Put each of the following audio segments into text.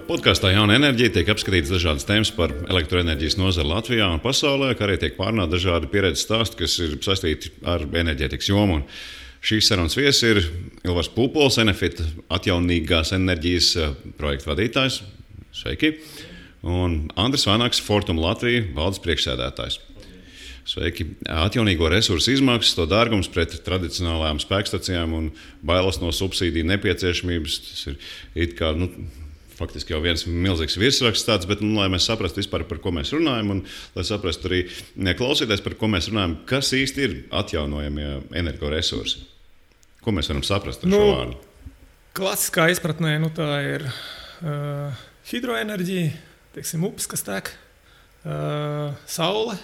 Podkāstā Jauna enerģija tiek apskatītas dažādas tēmas par elektroenerģijas nozari Latvijā un pasaulē, kā arī tiek pārunāti dažādi pieredzes stāsti, kas ir saistīti ar enerģētikas jomu. Šīs sarunas viesis ir Ilvars Pūpols, Enefit atjaunīgās enerģijas projekta vadītājs. Sveiki! Un Andris Vanaks, Fortum Latvija valdes priekšsēdētājs. Sveiki! Atjaunīgo resursu izmaksas, to dārgums pret tradicionālajām spēkstacijām un bailes no subsīdiju nepieciešamības. Tas ir it kā, faktiski jau viens milzīgs virsraksts tāds, bet, lai mēs saprastu vispār, par ko mēs runājam, un lai saprastu arī klausīties, par ko mēs runājam, kas īsti ir atjaunojamie energoresursi. Ko mēs varam saprast ar šo vārdu? Klasiskā izpratnē tā ir hidroenerģija, teiksim, upes, kas tek, saule,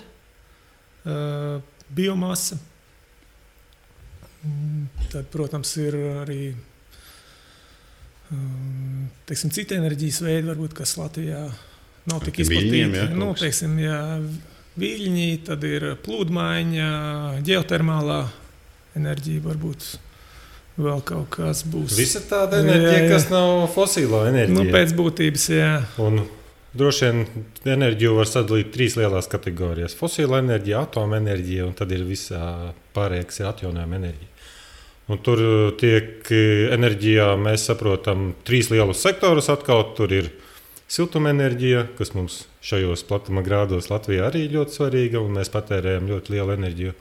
biomasa. Tad, protams, ir arī teiksim, citi enerģijas veidi, varbūt, kas Latvijā nav tik izplatīti. Viļņi, tad ir plūdmaiņa, ģeotermālā enerģija, varbūt vēl kaut kas būs. Visa tāda enerģija, kas nav fosīlo enerģija. Pēc būtības, jā. Un droši vien enerģiju var sadalīt 3 lielās kategorijas. Fosīla enerģija, atomenerģija, un tad ir visā pārējā, kas ir atjaunojama enerģija. Un tur tiek enerģijā, mēs saprotam, 3 lielus sektorus atkal. Tur ir siltumenerģija, kas mums šajos platuma grādos Latvijā arī ļoti svarīga, un mēs patērējam ļoti lielu enerģiju.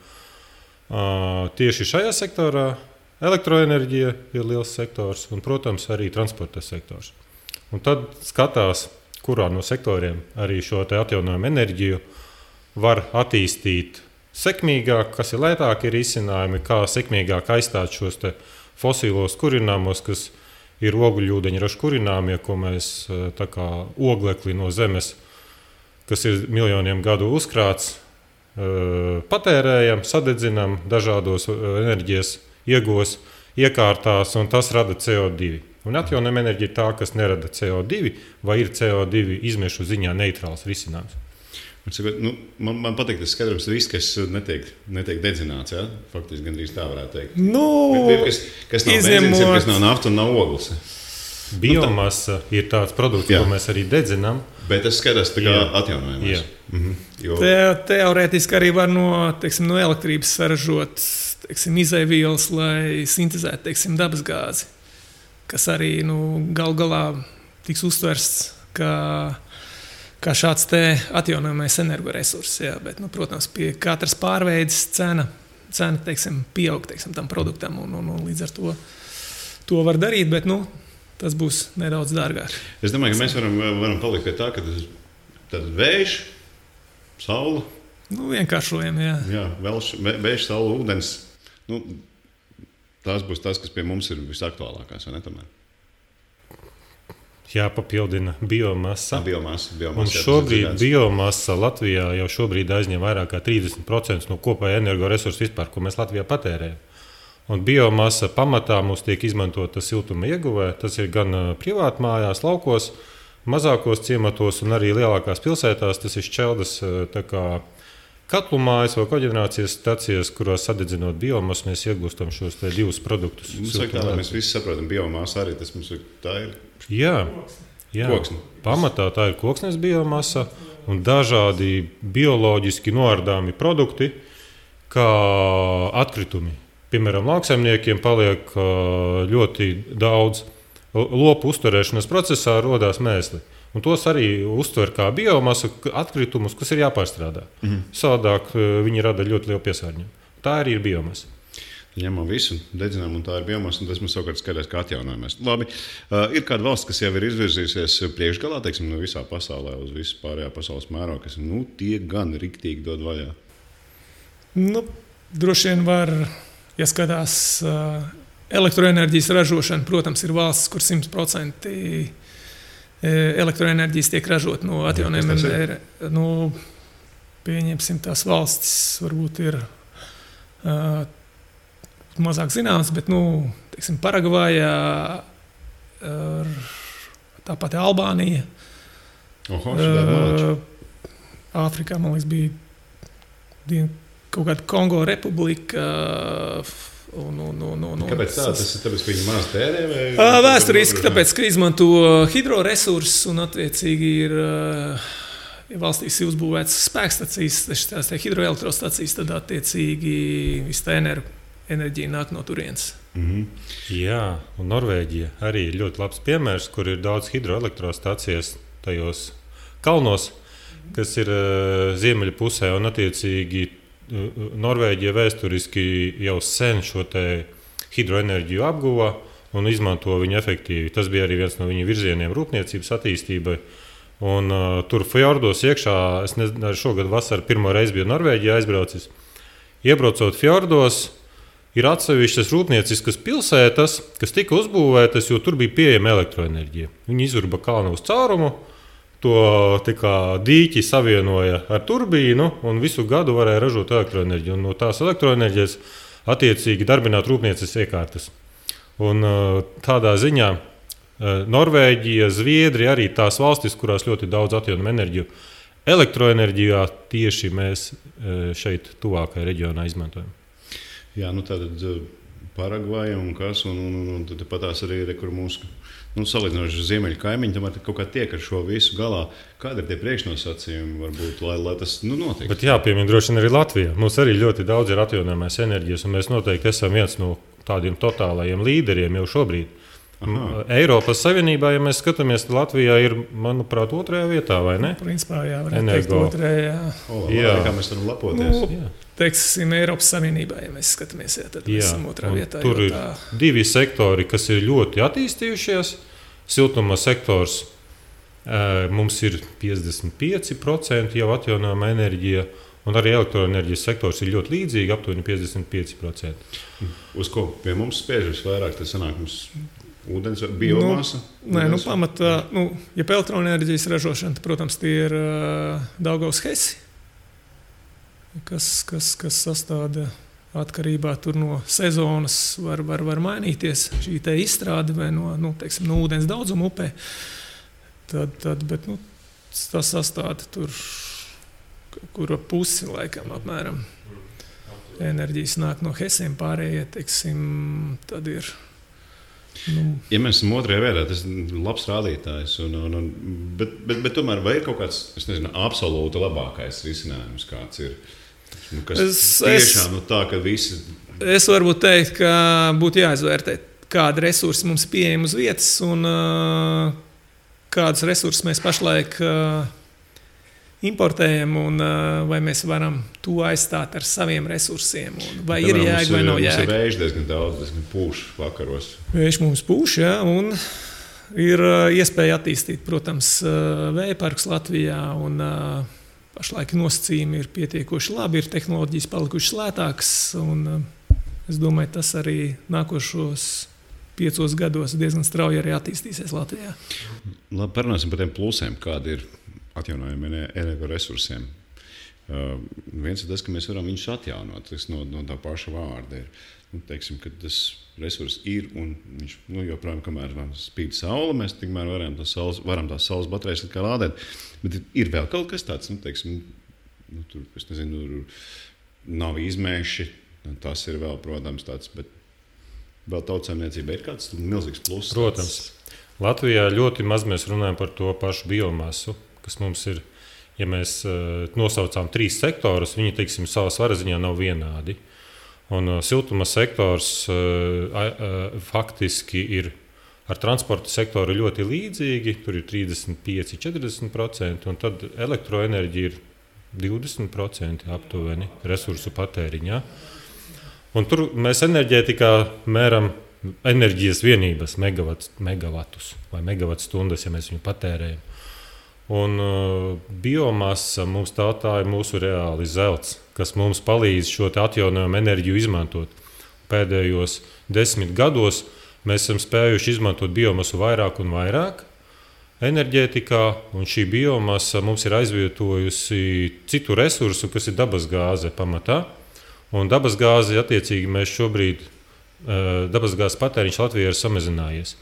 Tieši šajā sektorā elektroenerģija ir liels sektors, un, protams, arī transporta sektors. Un tad skatās, kurā no sektoriem arī šo te atjaunojumu enerģiju var attīstīt sekmīgāk, kas ir lētāki risinājumi, kā sekmīgāk aizstāt šos te fosīlos kurināmos, kas ir ogļūdeņraža kurināmie, ko mēs tā kā oglekli no zemes, kas ir miljoniem gadu uzkrāts, patērējam, sadedzinam dažādos enerģijas ieguvos, iekārtās, un tas rada CO2. Un atjaunojama enerģija ir tā, kas nerada CO2 vai ir CO2 izmešu ziņā neitrāls risinājums. Man patīk tas skaidrums, ka viss, kas netiek dedzināts, ja? Faktiski gandrīz tā varētu teikt. Kas nav benzīns, kas nav nafta un nav ogles. Biomasa ir tāds produkts, ko mēs arī dedzinām. Bet tas skatās tā kā atjaunojamais. Teorētiski arī var no elektrības saražot izaivielas, lai sintezētu dabasgāzi, kas arī gal galā tiks uztversts kā šāds atjaunojamais energoresurss. Bet, protams, pie katras pārveides cena pieaug tam produktam, un līdz ar to var darīt, bet tas būs nedaudz dārgāk. Es domāju, ka mēs varam palikt pie tā, ka tad vējš, saule. Vienkāršojam, jā. Jā, vējš, saule, ūdens. Tās būs tas, kas pie mums ir visaktuālākās, vai ne tomēr? Jāpapildina biomasa. Un šobrīd biomasa Latvijā jau šobrīd aizņem vairāk kā 30% no kopējā energoresursu vispār, ko mēs Latvijā patērējam. Un biomasa pamatā mums tiek izmantota siltuma ieguvē. Tas ir gan privātmājās, laukos, mazākos ciematos un arī lielākās pilsētās. Tas ir šķeldas katlu mājas vai koģenerācijas stacijas, kurās sadedzinot biomasu, mēs iegūstam šos 2 produktus. Mēs visi saprotam, biomasa arī tas mums ir. Tā ir. Jā. Koksne. Pamatā tā ir koksnes biomasa un dažādi bioloģiski noārdāmi produkti, kā atkritumi. Piemēram, lauksaimniekiem paliek ļoti daudz lopu uzturēšanas procesā, rodās mēsli. Un tos arī uztver kā biomasu atkritumus, kas ir jāpārstrādā. Savādāk viņi rada ļoti lielu piesārņojumu. Tā arī ir biomasa. Ņemam visu, dedzinām, un tā ir biomasa, un tas mums savukārt skatās kā atjaunojamies. Labi, ir kāda valsts, kas jau ir izvirzījusies priekšgalā, teiksim, visā pasaulē, uz visu pārējā pasaules mērogu, kas tie gan riktīgi dod vaļā? Droši vien var, ja skatās elektroenerģijas ražošana, protams, ir valsts, kur 100% elektroenerģijas tiek ražot no atjaunojumiem. Pieņemsim tās valstis, varbūt ir mazāk zināms, bet, Paragvājā, tāpat Albānija. Āfrikā, man liekas, bija kaut kāda Kongo republika. Kāpēc tā? Tas ir tāpēc, ka viņi maz tērē? Vēsturiski, tāpēc, ka izmanto hidroresursus un attiecīgi ir valstīs uzbūvētas spēkstacijas, tās hidroelektrostacijas, tad attiecīgi viss tā enerģija nāk no turienes. Jā, un Norvēģija arī ir ļoti labs piemērs, kur ir daudz hidroelektrostacijas tajos kalnos, kas ir ziemeļu pusē, un attiecīgi Norvēģija vēsturiski jau sen šo hidroenerģiju apguva un izmanto viņu efektīvi. Tas bija arī viens no viņu virzieniem rūpniecības attīstībai. Un, tur fjordos iekšā, es nezinu, šogad vasarā pirmo reizi biju Norvēģijā aizbraucis. Iebraucot fjordos, ir atsevišķas rūpnieciskas pilsētas, kas tika uzbūvētas, jo tur bija pieejama elektroenerģija. Viņi izurba kalnu uz caurumu. To dīķi savienoja ar turbīnu un visu gadu varēja ražot elektroenerģiju. Un no tās elektroenerģijas attiecīgi darbināt rūpnieces iekārtas. Un tādā ziņā Norvēģija, Zviedrija arī tās valstis, kurās ļoti daudz atjaunojamu enerģiju. Elektroenerģijā tieši mēs šeit tuvākajā reģionā izmantojam. Jā, tātad Paragvaja un kas, un tad patās arī kur mūsu salīdzinoši ziemeļu kaimiņi, tomēr kaut kā tiek ar šo visu galā. Kādi ir tie priekšnosacījumi, varbūt, lai tas notiek? Bet jāpiemina droši vien arī Latvijā. Mums arī ļoti daudz ir atjaunojamās enerģijas, un mēs noteikti esam viens no tādiem totālajiem līderiem jau šobrīd. Aha. Eiropas Savienībā, ja mēs skatāmies, Latvijā ir, manuprāt, 2. vietā, vai ne? Principā, jā, varētu teikt 2. Jā. Kā mēs varam lepoties? Teiksim, Eiropas Savienībā, ja mēs skatāmies, tad mēs esam 2. vietā. Tur ir 2 sektori, kas ir ļoti attīstījušies. Siltuma sektors mums ir 55% jau atjaunojama enerģija, un arī elektroenerģijas sektors ir ļoti līdzīgi, aptuveni 55%. Uz ko pie mums spiež visvairāk? Tas sanāk mums ūdens vai biomasa? Pamatā, ja pa elektroenerģijas ražošana, tad, protams, tie ir Daugavas Hesi, kas sastāda atkarībā no sezonas, var mainīties šī izstrāde vai no ūdens daudzuma upē. Bet tas sastāda tur, kur pusi laikam apmēram enerģijas nāk no Hesiem, pārējie, tad ir. Ja mēs esam 2. vietā, tas ir labs rādītājs. Bet tomēr vai ir kaut kāds, absolūti labākais risinājums, kāds ir? Tiešām tā, ka visi. Es varbūt teikt, ka būtu jāizvērtē, kādi resursi mums ir pieejami uz vietas un kādus resursus mēs pašlaik importējam un vai mēs varam to aizstāt ar saviem resursiem. Vai ir jēga vai nav jēga. Mums ir vējš diezgan daudz, diezgan pūš vakaros. Vējš mums pūš, jā, un ir iespēja attīstīt, protams, vējparkus Latvijā un pašlaik nosacījumi ir pietiekoši labi, ir tehnoloģijas palikušas lētākas, un es domāju, tas arī nākošos 5 gados diezgan strauji arī attīstīsies Latvijā. Labi, parunāsim par tiem plusiem, kādi ir atjaunojumiem energoresursiem. Viens ir tas, ka mēs varam viņus atjaunot, tas no tā paša vārda ir. Teiksim, ka tas resurs ir un viņš joprojām, kamēr spīd saule, mēs tikmēr varam tās saules baterijas lādēt. Bet ir vēl kaut kas tāds, teiksim, tur, es nezinu, nav izmēši, tas ir vēl, protams, tāds, bet vēl tautsaimniecība ir kāds milzīgs pluss. Protams. Latvijā ļoti maz mēs runājam par to pašu biomasu, kas mums ir, ja mēs nosaucām 3 sektorus, viņi, teiksim, savā svara ziņā nav vienādi. Un siltuma sektors faktiski ir ar transporta sektoru ļoti līdzīgi, tur ir 35–40%, un tad elektroenerģija ir 20% aptuveni resursu patēriņā. Un tur mēs enerģētikā mēram enerģijas vienības, megavatus vai megavatstundas, ja mēs viņu patērējam. Un biomasa mums tā ir mūsu reāli zelts, kas mums palīdz šo atjaunojumu enerģiju izmantot. Pēdējos 10 gados mēs esam spējuši izmantot biomasu vairāk un vairāk enerģētikā, un šī biomasa mums ir aizvietojusi citu resursu, kas ir dabasgāze pamatā. Un dabasgāzi, attiecīgi, mēs šobrīd, dabasgāzes patēriņš Latvijā ir samazinājies.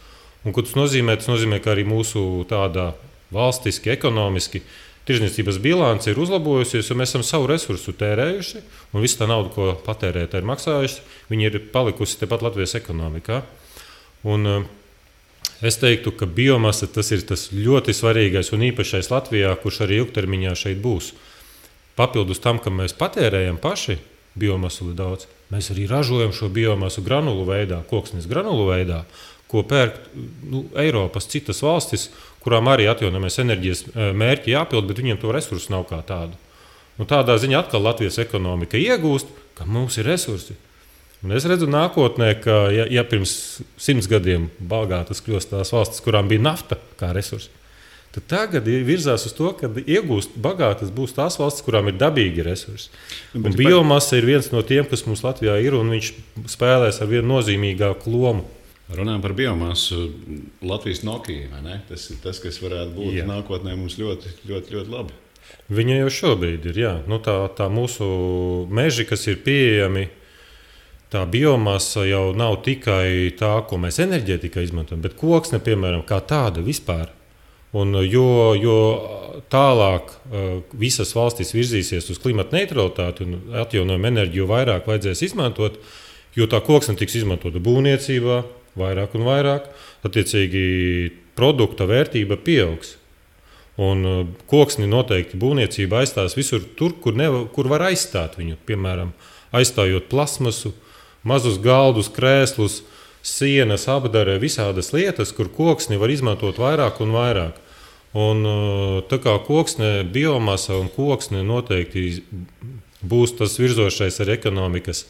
Un ko tas nozīmē? Tas nozīmē, ka arī mūsu tādā valstiski, ekonomiski Tirzniecības bilance ir uzlabojusies, jo mēs esam savu resursu tērējuši, un visa tā nauda, ko patērētāji ir maksājuši, viņi ir palikusi tepat Latvijas ekonomikā. Un es teiktu, ka biomasa tas ir tas ļoti svarīgais un īpašais Latvijā, kurš arī ilgtermiņā šeit būs. Papildus tam, ka mēs patērējam paši biomasu daudz, mēs arī ražojam šo biomasu granulu veidā, koksnes granulu veidā, ko pērk Eiropas citas valstis, kurām arī atjaunojamās enerģijas mērķi jāpild, bet viņiem to resursu nav kā tādu. Un tādā ziņā atkal Latvijas ekonomika iegūst, ka mums ir resursi. Un es redzu nākotnē, ka ja pirms 100 gadiem bagātas kļūst tās valstis, kurām bija nafta kā resursi, tad tagad virzās uz to, ka iegūst bagātas būs tās valstis, kurām ir dabīgi resursi. Un biomasa ir viens no tiem, kas mums Latvijā ir, un viņš spēlēs ar vienu nozīmīgāku lomu. Runājot par biomasu, Latvijas Nokia, vai ne? Tas ir tas, kas varētu būt nākotnē mums ļoti, ļoti, ļoti labi. Viņa jau šobrīd ir, jā. Tā mūsu meži, kas ir pieejami, tā biomasa jau nav tikai tā, ko mēs enerģētikā izmantojam, bet koksne, piemēram, kā tāda vispār. Un jo tālāk visas valstis virzīsies uz klimata neutralitāti un atjaunojumu enerģiju vairāk vajadzēs izmantot, jo tā koksne tiks izmantota būvniecībā, vairāk un vairāk, attiecīgi produkta vērtība pieaugs. Un koksni noteikti būvniecība aizstās visur tur, kur var aizstāt viņu. Piemēram, aizstājot plasmasu, mazus galdus, krēslus, sienas, apdare, visādas lietas, kur koksni var izmantot vairāk un vairāk. Un tā kā koksne, biomasa un koksne noteikti būs tas virzošais ar ekonomikas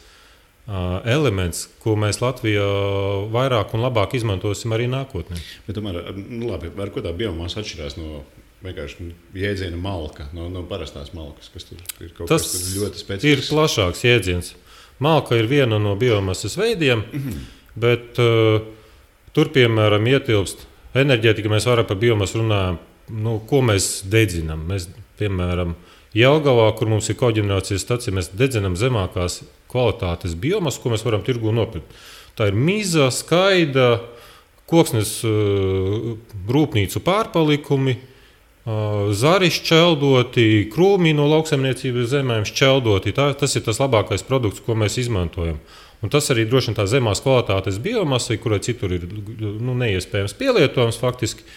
elements, ko mēs Latvijā vairāk un labāk izmantosim arī nākotnē. Bet tomēr, labi, ar ko tā biomasa atšķirās no vienkārši jēdziena malka, no parastās malkas, kas tur ir kaut kas ļoti specifisks? Tas ir plašāks jēdziens. Malka ir viena no biomasas veidiem, bet tur, piemēram, ietilpst enerģētika, mēs vairāk par biomasu runājam, ko mēs dedzinām. Mēs, piemēram, Jelgavā, kur mums ir koģenerācijas stacija, mēs dedzinām zemākās kvalitātes biomasu, ko mēs varam tirgū nopirkt. Tā ir miza, skaida, koksnes rūpnīcu pārpalikumi, zari šķeldoti, krūmi no lauksaimniecības zemēm šķeldoti. Tas ir tas labākais produkts, ko mēs izmantojam. Un tas arī droši vien tā zemās kvalitātes biomasa, kurai citur ir neiespējams pielietojams faktiski.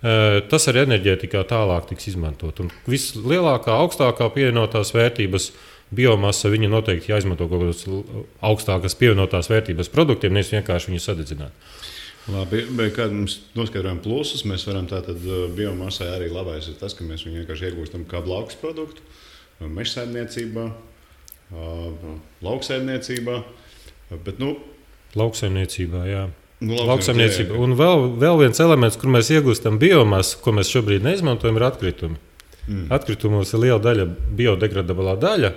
Tas arī enerģētikā tālāk tiks izmantot. Un vislielākā, augstākā pievienotās vērtības biomasa, viņa noteikti jāizmanto kaut kādas augstākas pievienotās vērtības produktiem, nevis vienkārši viņu sadedzināt. Labi, bet kad mums noskaidrojam plusus, mēs varam tātad biomasai arī labais ir tas, ka mēs viņu vienkārši iegūstam kā blakus produktu, mežsaimniecībā, lauksaimniecībā, bet lauksaimniecībā, jā. Lauksaimniecība. Un vēl viens elements, kur mēs iegūstam biomasu, ko mēs šobrīd neizmantojam, ir atkritumi. Atkritumos ir liela daļa biodegradablā daļa,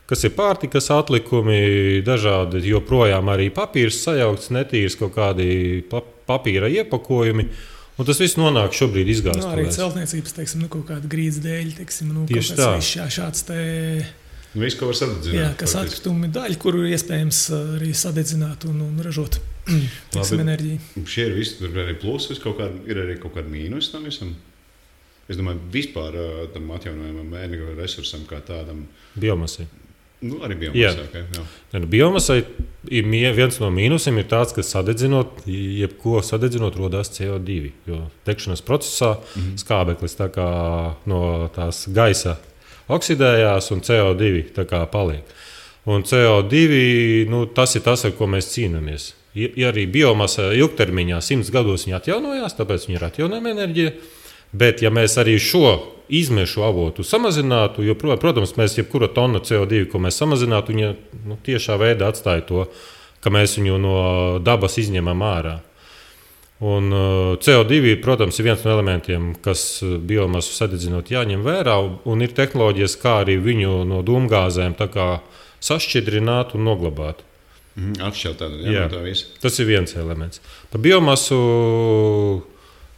kas ir pārtikas atlikumi, dažādi joprojām arī papīrs sajaukts, netīrs kaut kādi papīra iepakojumi. Un tas viss nonāk šobrīd izgāstuvēs. Arī celtniecības, kaut kāda grīdas dēļ, tieši tā. Šāds te... Viss, ko var sadedzināt. Jā, kas atkritumi daļa, kuru iespējams arī sadedzināt un ražot enerģiju. Šie ir visi, tur ir arī plusi, ir arī kaut kāda mīnus tam visam. Es domāju, vispār tam atjaunojamam energoresursam kā tādam. Biomasai. Arī biomasai. Jā. Biomasai viens no mīnusiem ir tāds, ka jebko sadedzinot rodās CO2. Jo degšanas procesā skābeklis tā kā no tās gaisa oksidējās un CO2 tā kā paliek. Un CO2, tas ir tas, ar ko mēs cīnāmies. Ja arī biomasa ilgtermiņā 100 gados viņa atjaunojās, tāpēc viņa ir atjaunojama enerģija, bet ja mēs arī šo izmešu avotu samazinātu, jo, protams, mēs jebkura tonna CO2, ko mēs samazinātu, viņa tiešā veidā atstāja to, ka mēs viņu no dabas izņemam ārā. Un CO2, protams, ir viens no elementiem, kas biomasu sadedzinot jāņem vērā, un ir tehnoloģijas, kā arī viņu no dūmgāzēm sašķidrināt un noglabāt. Atšķirt tādu, jā, no tā visa. Tas ir viens elements. Par biomasu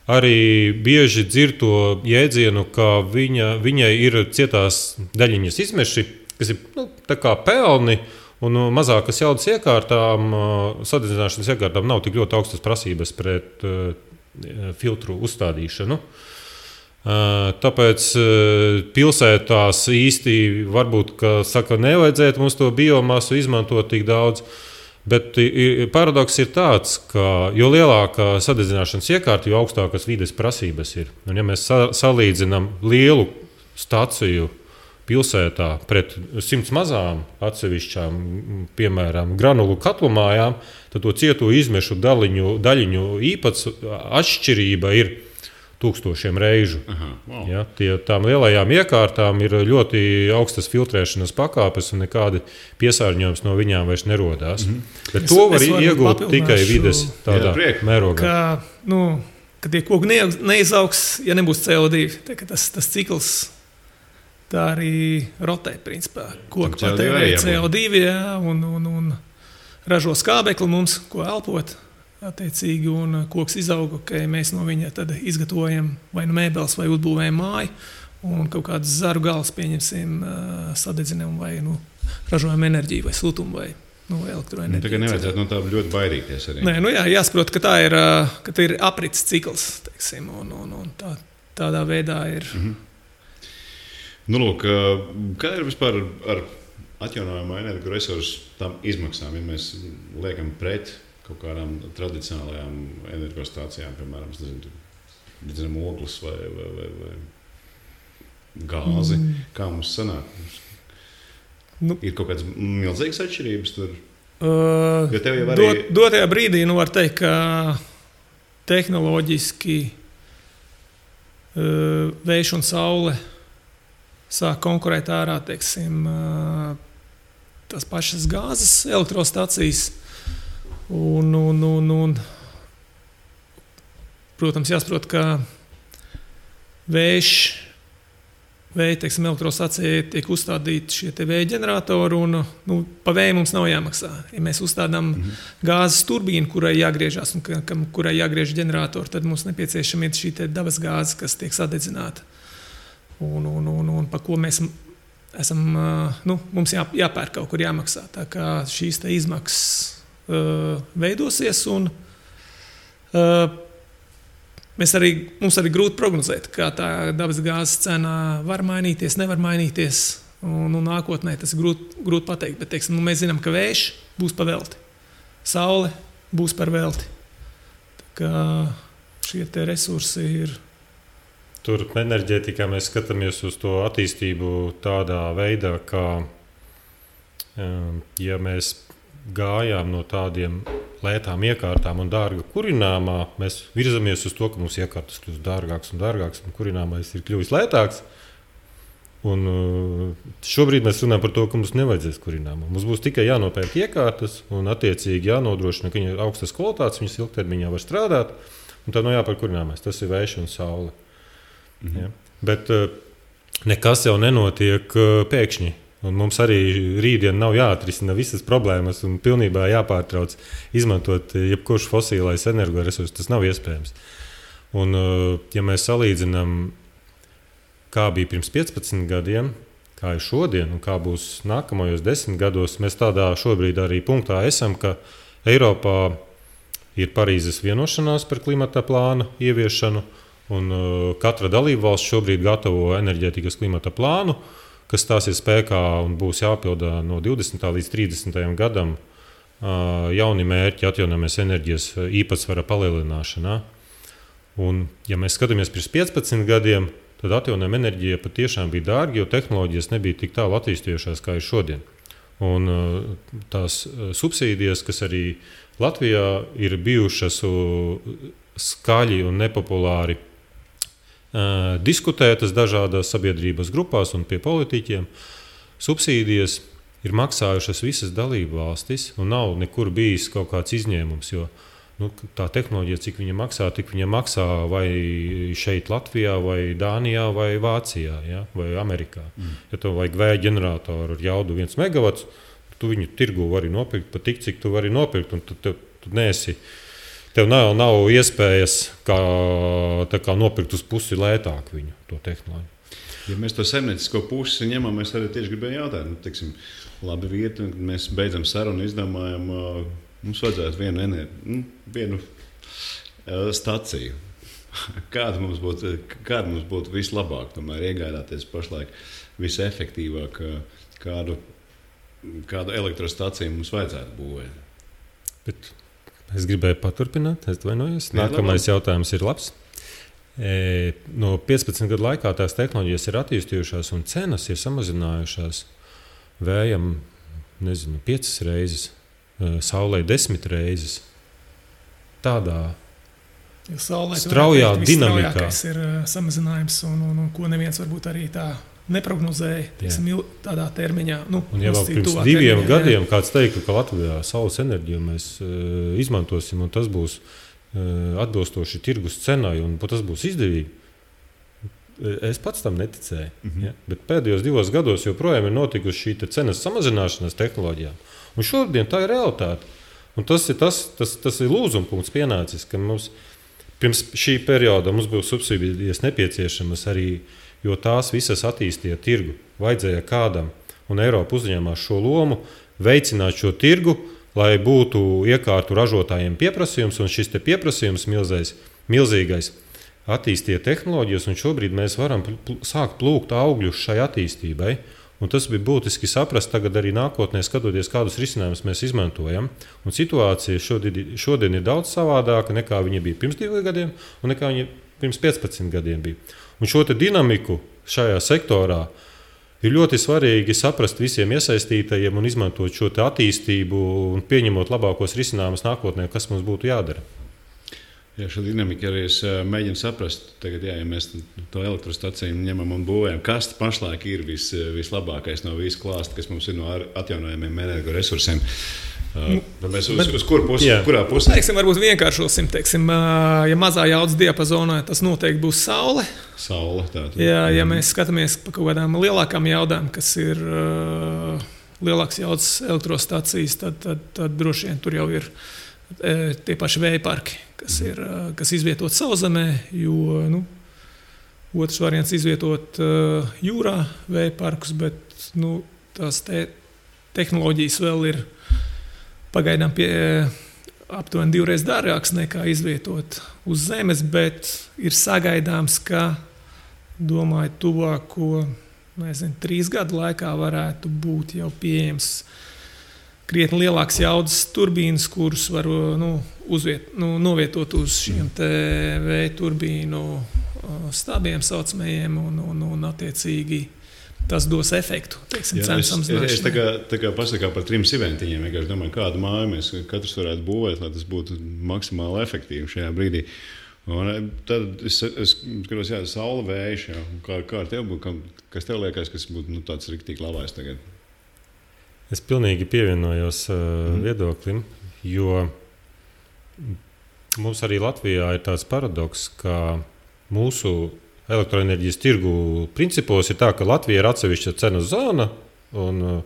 arī bieži dzird to jēdzienu, ka viņai ir cietās daļiņas izmeši, kas ir tā kā pelni, un mazākas jaudas iekārtām, sadedzināšanas iekārtām nav tik ļoti augstas prasības pret filtru uzstādīšanu. Tāpēc pilsētās īsti varbūt, nevajadzētu mums to biomasu izmantot tik daudz. Bet paradoks ir tāds, ka jo lielākā sadedzināšanas iekārta, jo augstākas vides prasības ir. Un, ja mēs salīdzinām lielu staciju pilsētā pret 100 mazām atsevišķām, piemēram, granulu katlumājām, tad to cieto izmešu daļiņu atšķirība ir 1000 reižu. Aha, wow. Ja, tām lielajām iekārtām ir ļoti augstas filtrēšanas pakāpes un nekādi piesārņojums no viņām vairs nerodās. Bet to var iegūt tikai vides tādā mērogā. Ka tie koki neizaugs, ja nebūs CO2. Tas cikls tā arī rotē, principā. Koki patērē CO2 un ražo skābekli mums, ko elpot. Attiecīgi, un koks izauga, ka mēs no viņa tad izgatavojam vai nu mēbeles, vai uzbūvējam māju, un kaut kādas zaru galas pieņemsim, sadedzinām vai ražojam enerģiju, vai siltumu, vai elektroenerģiju. Tā kā nevajadzētu no tā ļoti baidīties arī. Nē, jāsaprot, ka tā ir aprits cikls, teiksim, un tādā veidā ir. Lūk, kā ir vispār ar atjaunojamo energoresursu tām izmaksām, ja mēs liekam pret kaut kādām tradicionālajām energostācijām, piemēram, ogles vai gāzi. Kā mums sanāk? Ir kaut kādas milzīgas atšķirības tur? Jo tev jau arī... Dotajā brīdī, var teikt, ka tehnoloģiski vējš un saule sāk konkurēt ārā, teiksim, tās pašas gāzes elektrostacijas. Protams, jāsaprot, ka vēja elektrostacijai tiek uzstādīti šie vēja ģeneratori, un pa vēju mums nav jāmaksā. Ja mēs uzstādām gāzes turbīnu, kurai jāgriežas un kurai jāgriež ģeneratori, tad mums nepieciešama ir šī dabas gāze, kas tiek sadedzināta. Un pa ko mēs esam, mums jāpērk kaut kur jāmaksā. Tā kā šīs izmaksas veidosies, un mums arī grūti prognozēt, kā tā dabas gāzes cena var mainīties, nevar mainīties, un nākotnē tas ir grūti pateikt, bet mēs zinām, ka vējš būs par velti, saule būs par velti. Tā kā šie te resursi ir. Tur enerģētikā mēs skatāmies uz to attīstību tādā veidā, ka ja mēs gājām no tādiem lētām iekārtām un dārga kurināmā, mēs virzamies uz to, ka mums iekārtas kļūst dārgāks un dārgāks, un kurināmais ir kļuvis lētāks. Un šobrīd mēs runājam par to, ka mums nevajadzēs kurināmā. Mums būs tikai jānopērk iekārtas un attiecīgi jānodrošina, ka viņi ir augstas kvalitātes, viņas ilgtermiņā var strādāt, un tad jāpērk kurināmais. Tas ir vējš un saule. Ja? Bet nekas jau nenotiek pēkšņi. Un mums arī rītdien nav jāatrisina visas problēmas un pilnībā jāpārtrauc izmantot jebkurš fosilais energoresurss. Tas nav iespējams. Un, ja mēs salīdzinām, kā bija pirms 15 gadiem, kā ir šodien un kā būs nākamajos 10 gados, mēs tādā šobrīd arī punktā esam, ka Eiropā ir Parīzes vienošanās par klimata plānu ieviešanu, un katra dalībvalsts šobrīd gatavo enerģētikas klimata plānu, kas stāsies spēkā un būs jāpilda no 20. līdz 30. gadam jauni mērķi atjaunojamas enerģijas īpatsvara palielināšanā. Un, ja mēs skatāmies pirms 15 gadiem, tad atjaunojama enerģija patiešām bija dārga, jo tehnoloģijas nebija tik tālu attīstījušās, kā ir šodien. Un tās subsīdijas, kas arī Latvijā ir bijušas skaļi un nepopulāri diskutētas dažādās sabiedrības grupās un pie politiķiem, subsīdijas ir maksājušas visas dalību valstis, un nav nekur bijis kaut kāds izņēmums, jo tā tehnoloģija, cik viņa maksā, tik viņa maksā vai šeit Latvijā, vai Dānijā, vai Vācijā, ja? Vai Amerikā. Ja tev vajag vēja ģeneratoru ar jaudu 1 megavats, tu viņu tirgu vari nopirkt pat tik, cik tu vari nopirkt, un tu neesi. Tev nav iespējas kā nopirkt uz pusi lētāk viņu, to tehnoloģiju. Ja mēs to saimniecisko pusi ņemam, mēs arī tieši gribējām jautāt, labi vieta, kad mēs beidzam sarunu, izdomājam, mums vajadzētu vienu staciju. Kāda mums būtu vislabāk, tomēr iegādāties pašlaik visefektīvāk, kādu elektrostaciju mums vajadzētu būvēt? Bet es gribēju paturpināt, es atvainojos. Nākamais jautājums ir labs. No 15 gadu laikā tās tehnoloģijas ir attīstījušās un cenas ir samazinājušās vējam, 5 reizes, saulē 10 reizes. Tādā straujā dinamikā ir samazinājums, un ko neviens varbūt arī tā neprognozēja tādā termiņā. Un jau pirms 2 gadiem kāds teica, ka Latvijā saules enerģiju mēs izmantosim, un tas būs atbilstoši tirgus cenai, un tas būs izdevīgi. Es pats tam neticēju. Ja? Bet pēdējos 2 gados joprojām ir notikusi šī cenas samazināšanās tehnoloģijām. Un šodien tā ir realitāte. Un tas ir lūzuma punkts pienācis, ka mums pirms šī perioda mums būs subsīdijas nepieciešamas arī, jo tās visas attīstīja tirgu. Vajadzēja kādam, un Eiropa uzņēmās šo lomu, veicināt šo tirgu, lai būtu iekārtu ražotājiem pieprasījums, un šis pieprasījums milzīgais attīstīja tehnoloģijas, un šobrīd mēs varam sākt plūkt augļus šai attīstībai. Un tas bija būtiski saprast tagad arī nākotnē, skatoties, kādus risinājumus mēs izmantojam. Un situācija šodien ir daudz savādāka nekā viņa bija pirms 2 gadiem un nekā viņa pirms 15 gadiem bija. Un šo dinamiku šajā sektorā ir ļoti svarīgi saprast visiem iesaistītajiem un izmantot šo attīstību un pieņemot labākos risinājumus nākotnē, kas mums būtu jādara. Jā, šo dinamiku arī es mēģinu saprast. Tagad, ja mēs to elektrostaciju ņemam un būvējam, kas pašlaik ir vislabākais no visu klāsta, kas mums ir no atjaunojamiem energoresursiem? Mēs uz kuru pusi? Kurā pusē? Varbūt vienkāršosim. Ja mazā jaudas diapazonā, tas noteikti būs saule. Ja mēs skatāmies pa kaut kādām lielākām jaudām, kas ir lielākas jaudas elektrostacijas, tad droši vien tur jau ir tie paši vēja parki, kas izvietot sauszemē, jo otrs variants izvietot jūrā vēja parkus, bet tās tehnoloģijas vēl ir pagaidām aptuveni 2 reizes dārgākas nekā izvietot uz zemes, bet ir sagaidāms, ka, domāju, tuvāko 3 gadu laikā varētu būt jau pieejams krietni lielāks jaudas turbīnas, kuras var novietot uz šiem vēja turbīnu stābiem saucamajiem, un attiecīgi tas dos efektu. Cenu samazināšanai. Es tā kā pasakā par 3 siventiņiem. Es domāju, kādu māju mēs katrs varētu būvēt, lai tas būtu maksimāli efektīvi šajā brīdī. Un tad es skatos, saule, vējš. Kā ar tev būtu, kas tev liekas, kas būtu tāds riktīgi labais tagad? Es pilnīgi pievienojos viedoklim, jo mums arī Latvijā ir tāds paradoks, ka mūsu elektroenerģijas tirgu principos ir tā, ka Latvija ir atsevišķa cenu zona, un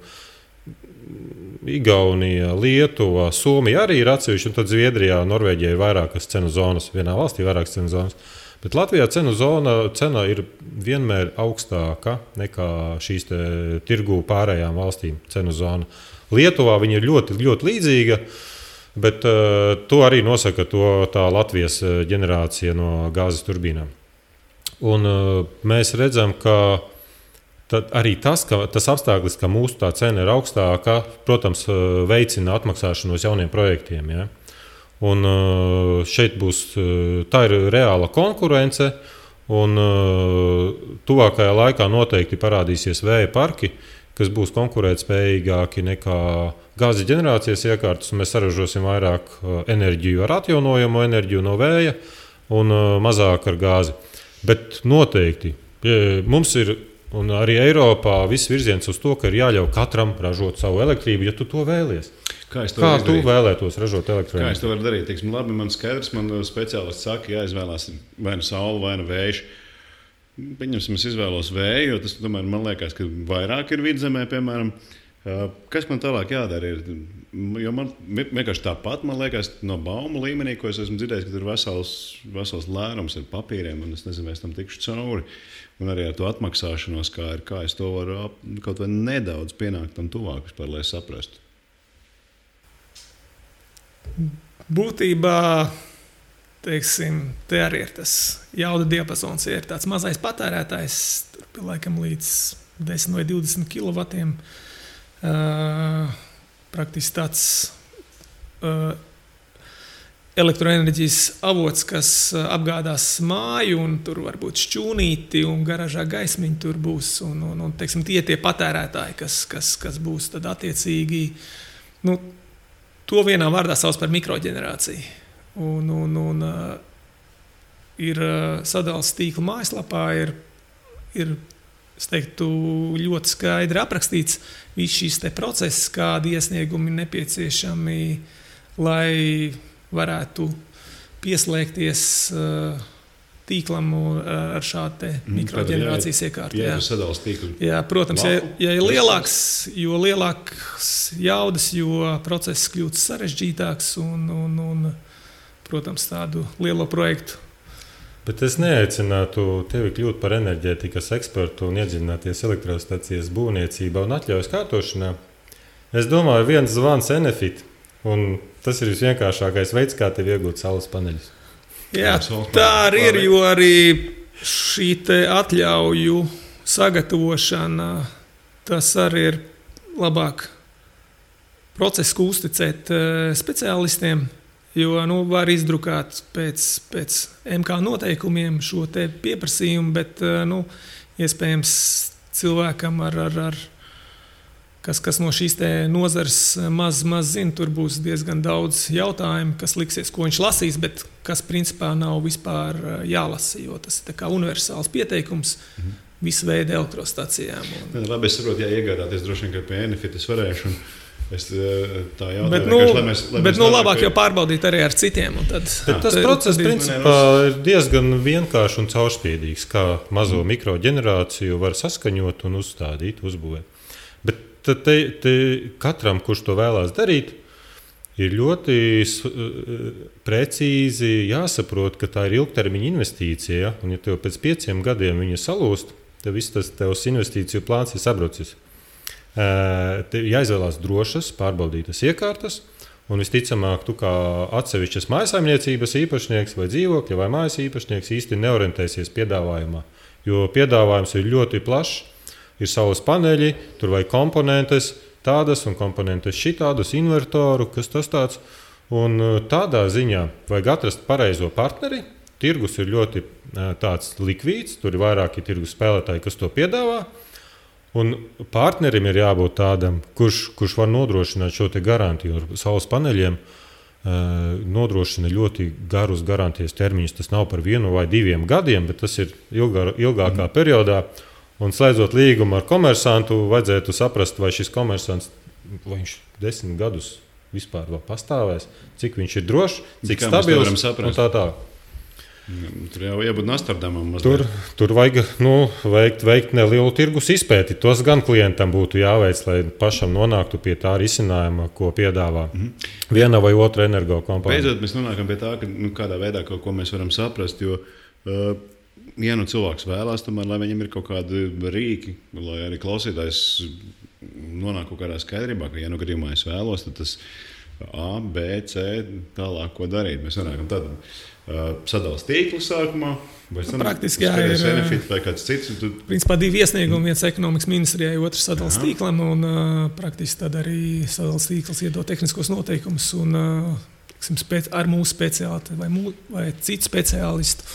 Igaunija, Lietuva, Somija arī ir atsevišķa, un tad Zviedrijā, Norvēģijā ir vairākas cenu zonas, vienā valstī vairākas cenu zonas. Bet Latvijā cena ir vienmēr augstāka nekā šīs tirgu pārējām valstīm cenu zona. Lietuvā viņa ir ļoti, ļoti līdzīga, bet to arī nosaka tā Latvijas ģenerācija no gāzes turbīnām. Un mēs redzam, ka arī tas apstākļus, ka mūsu tā cena ir augstāka, protams, veicina atmaksāšanos jauniem projektiem. Ja? Un šeit tā ir reāla konkurence, un tuvākajā laikā noteikti parādīsies vēja parki, kas būs konkurētspējīgāki nekā gāzes ģenerācijas iekārtas. Mēs saražosim vairāk enerģiju ar atjaunojamo enerģiju no vēja un mazāk ar gāzi. Bet noteikti mums ir, un arī Eiropā, viss virziens uz to, ka ir jāļauj katram ražot savu elektrību, ja tu to vēlies. Kā tu vēlētos ražot elektroenerģiju? Kā es to varu darīt? Labi, man skaidrs, man speciālists saka, jāizvēlās vai nu saule, vai nu vējš. Pieņemsim, es izvēlos vēju, jo tas, tomēr, man liekas, ka vairāk ir vidzemē, piemēram. Kas man tālāk jādara? Jo man vienkārši tāpat, man liekas, no baumu līmenī, ko es esmu dzirdējis, ka tur ir vesels lērums ar papīriem, un es nezinu, vai es tam tikšu cauri. Un arī ar to atmaksāšanos, kā es to varu kaut vai nedaudz pienākt tam tuvāk, vispār, lai saprastu. Būtībā teiksim, te arī ir tas jauda diapazons. Ja ir tāds mazais patērētājs, tur laikam līdz 10 vai 20 kW. Praktiski tāds elektroenerģijas avots, kas apgādās māju, un tur var būt šķūnīti, un garažā gaismiņi tur būs. Un teiksim, tie patērētāji, kas būs tad attiecīgi, to vienā vārdā sauc par mikroģenerāciju. Un ir sadales tīkla mājaslapā, ir es teiktu, ļoti skaidri aprakstīts viss šīs te process, kādi iesniegumi nepieciešami, lai varētu pieslēgties tīklam ar šādu mikroģenerācijas iekārtu. Jā, sadales tīklu. Jā, protams, ja ir jo lielāks jaudas, jo process kļūst sarežģītāks un protams, tādu lielo projektu. Bet es neaicinātu tevi kļūt par enerģētikas ekspertu un iedziļināties elektrostacijas būvniecībā un atļaujas kārtošanā. Es domāju, viens zvans Enefit, un tas ir visvienkāršākais veids, kā tev iegūt saules paneļus. Jā, tā arī ir, jo arī šī te atļauju sagatavošana, tas arī ir labāk procesu, ko uzticēt speciālistiem. Jo var izdrukāt pēc MK noteikumiem šo te pieprasījumu, bet iespējams cilvēkam, kas no šīs te nozares maz zina, tur būs diezgan daudz jautājumu, kas liksies, ko viņš lasīs, bet kas principā nav vispār jālasa, jo tas ir tā kā universāls pieteikums visu veidu elektrostacijām. Labi, es saprotu, iegādāties droši vien, ka pie Enefit es varēšu. Es tā jautāju, bet labāk jau pārbaudīt arī ar citiem. Tas process principā ir diezgan vienkāršs un caurspīdīgs, kā mazo mikroģenerāciju var saskaņot un uzstādīt, uzbūvēt. Bet te katram, kurš to vēlās darīt, ir ļoti precīzi jāsaprot, ka tā ir ilgtermiņa investīcija, un ja tev pēc 5 gadiem viņa salūst, tad viss tas tevs investīciju plāns ir sabrucis. Jāizvēlās drošas, pārbaudītas iekārtas, un visticamāk, tu kā atsevišķas mājsaimniecības īpašnieks vai dzīvokļa vai mājas īpašnieks īsti neorientēsies piedāvājumā, jo piedāvājums ir ļoti plašs, ir saules paneļi, tur vajag komponentes tādas un komponentes šitādas, invertoru, kas tas tāds, un tādā ziņā vajag atrast pareizo partneri, tirgus ir ļoti tāds likvīds, tur ir vairāki tirgus spēlētāji, kas to piedāvā, un partnerim ir jābūt tādam, kurš var nodrošināt šo te garantiju. Ar saules paneļiem nodrošina ļoti garus garantijas termiņus. Tas nav par 1 vai 2 gadiem, bet tas ir ilgākā periodā. Un slēdzot līgumu ar komersantu, vajadzētu saprast, vai šis komersants, vai viņš 10 gadus vispār vēl pastāvēs, cik viņš ir drošs, cik stabils un tā. Tur jau jābūt Nastardamam mazliet. Tur vajag veikt nelielu tirgus izpēti. Tos gan klientam būtu jāveic, lai pašam nonāktu pie tā risinājuma, ko piedāvā viena vai otra energo kompānija. Beidzot, mēs nonākam pie tā, ka kādā veidā kaut ko mēs varam saprast, jo cilvēks vēlās, tomēr, lai viņam ir kaut kādi rīki, lai arī klausītājs nonāk kaut kādā skaidrībā, ka gadījumā es vēlos, tad tas A, B, C, tālāk, ko darīt. Mēs nonākam tad sadales tīklu sākumā, vai praktiski ir Enefit vai kāds cits. Principā 2 iesniegumi, viens ekonomikas ministrijai, otrs sadales tīklam, un praktiski tad arī sadales tīkls iedod tehniskos noteikumus, un ar mūsu speciālistu vai citu speciālistu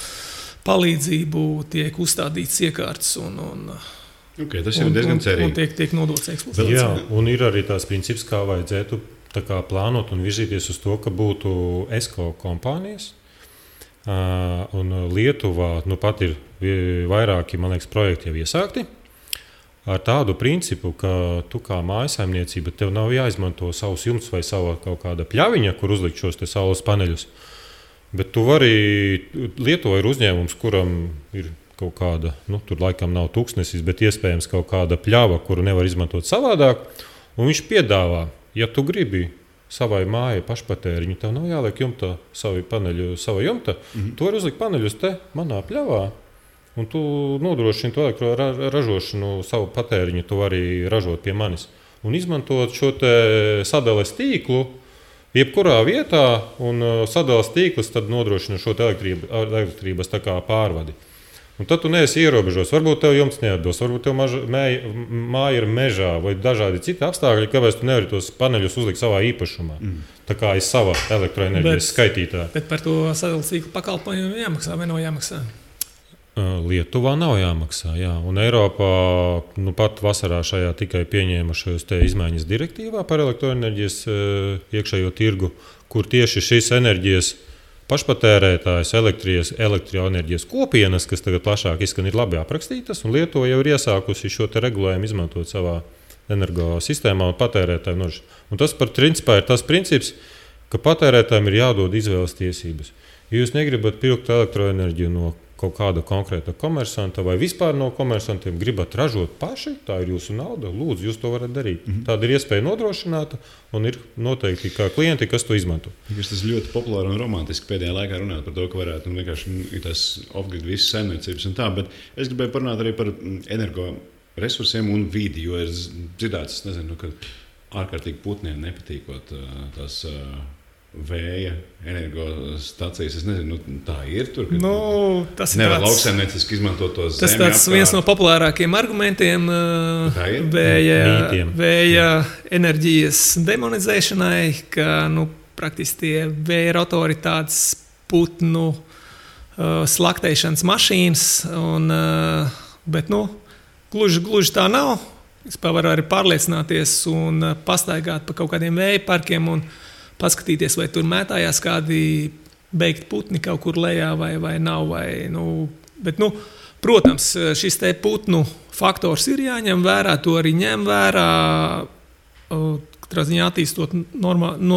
palīdzību tiek uzstādīts iekārtas, tas ir diezgan cerīgi. Un tiek nodots eksploatācijai. Jā, un ir arī tās princips, kā vajadzētu plānot un virzīties uz to, ka būtu ESCO kompānijas. Un Lietuvā pat ir vairāki, man liekas, projekti jau iesākti. Ar tādu principu, ka tu kā mājasaimniecība, tev nav jāizmanto savus jumts vai sava kaut kāda pļaviņa, kur uzlikt šos te saules paneļus. Bet tu vari, Lietuvā ir uzņēmums, kuram ir kaut kāda, tur laikam nav tūkstnesis, bet iespējams kaut kāda pļava, kuru nevar izmantot savādāk. Un viņš piedāvā, ja tu gribi savai mājai pašpatēriņu, tev nav jāliek jumta sava jumta. Tu vari uzlikt paneļus te manā pļavā, un tu nodrošini to ražošanu, savu patēriņu tu vari ražot pie manis. Un izmantot šo te sadales tīklu, jebkurā vietā un sadales tīklus tad nodrošina šo elektrības tā kā pārvadi. Un tad tu neesi ierobežots. Varbūt tev jumts neatbilst, varbūt tev māja ir mežā vai dažādi citi apstākļi, kāpēc tu nevari tos paneļus uzlikt savā īpašumā. Tā kā ir sava elektroenerģijas skaitītāja. Bet par to sadales tīklu pakalpojumu jāmaksā vai nav jāmaksā? Lietuvā nav jāmaksā. Jā. Un Eiropā pat vasarā šajā tikai pieņēma šos izmaiņas direktīvā par elektroenerģijas iekšējo tirgu, kur tieši šīs enerģijas pašpatērētājs, elektroenerģijas kopienas, kas tagad plašāk izskan, ir labi aprakstītas, un Lietuva jau ir iesākusi šo regulējumu izmantot savā energosistēmā un patērētājiem nodrošināt. Un tas principā ir tas princips, ka patērētājiem ir jādod izvēles tiesības. Ja jūs negribat pirkt elektroenerģiju no kaut kāda konkrēta komersanta vai vispār no komersantiem, gribat ražot paši, tā ir jūsu nauda, lūdzu, jūs to varat darīt. Tāda ir iespēja nodrošināta un ir noteikti kā klienti, kas to izmanto. Tas ļoti populāri un romantiski pēdējā laikā runāt par to, ka varētu vienkārši tas off-grid visas saimniecības un tā, bet es gribēju parunāt arī par energoresursiem un vidi, jo ir dzirdēts, ka ārkārtīgi putniem nepatīkot tās vēja energostacijas. Es nezinu, tā ir tur. Tas ir nevar lauksaimnieciski izmantot to zemi. Tas ir viens no populārākajiem argumentiem vēja enerģijas demonizēšanai, ka praktiski tie vēja rotori tādas putnu slaktēšanas mašīnas, bet gluži tā nav. Vispār var arī pārliecināties un pastaigāt pa kaut kādiem vēja parkiem un paskatīties, vai tur mētājās kādi beigti putni kaut kur lejā vai nav. Bet, protams, šis te putnu faktors ir jāņem vērā, to arī ņem vērā, katrā ziņā attīstot normālu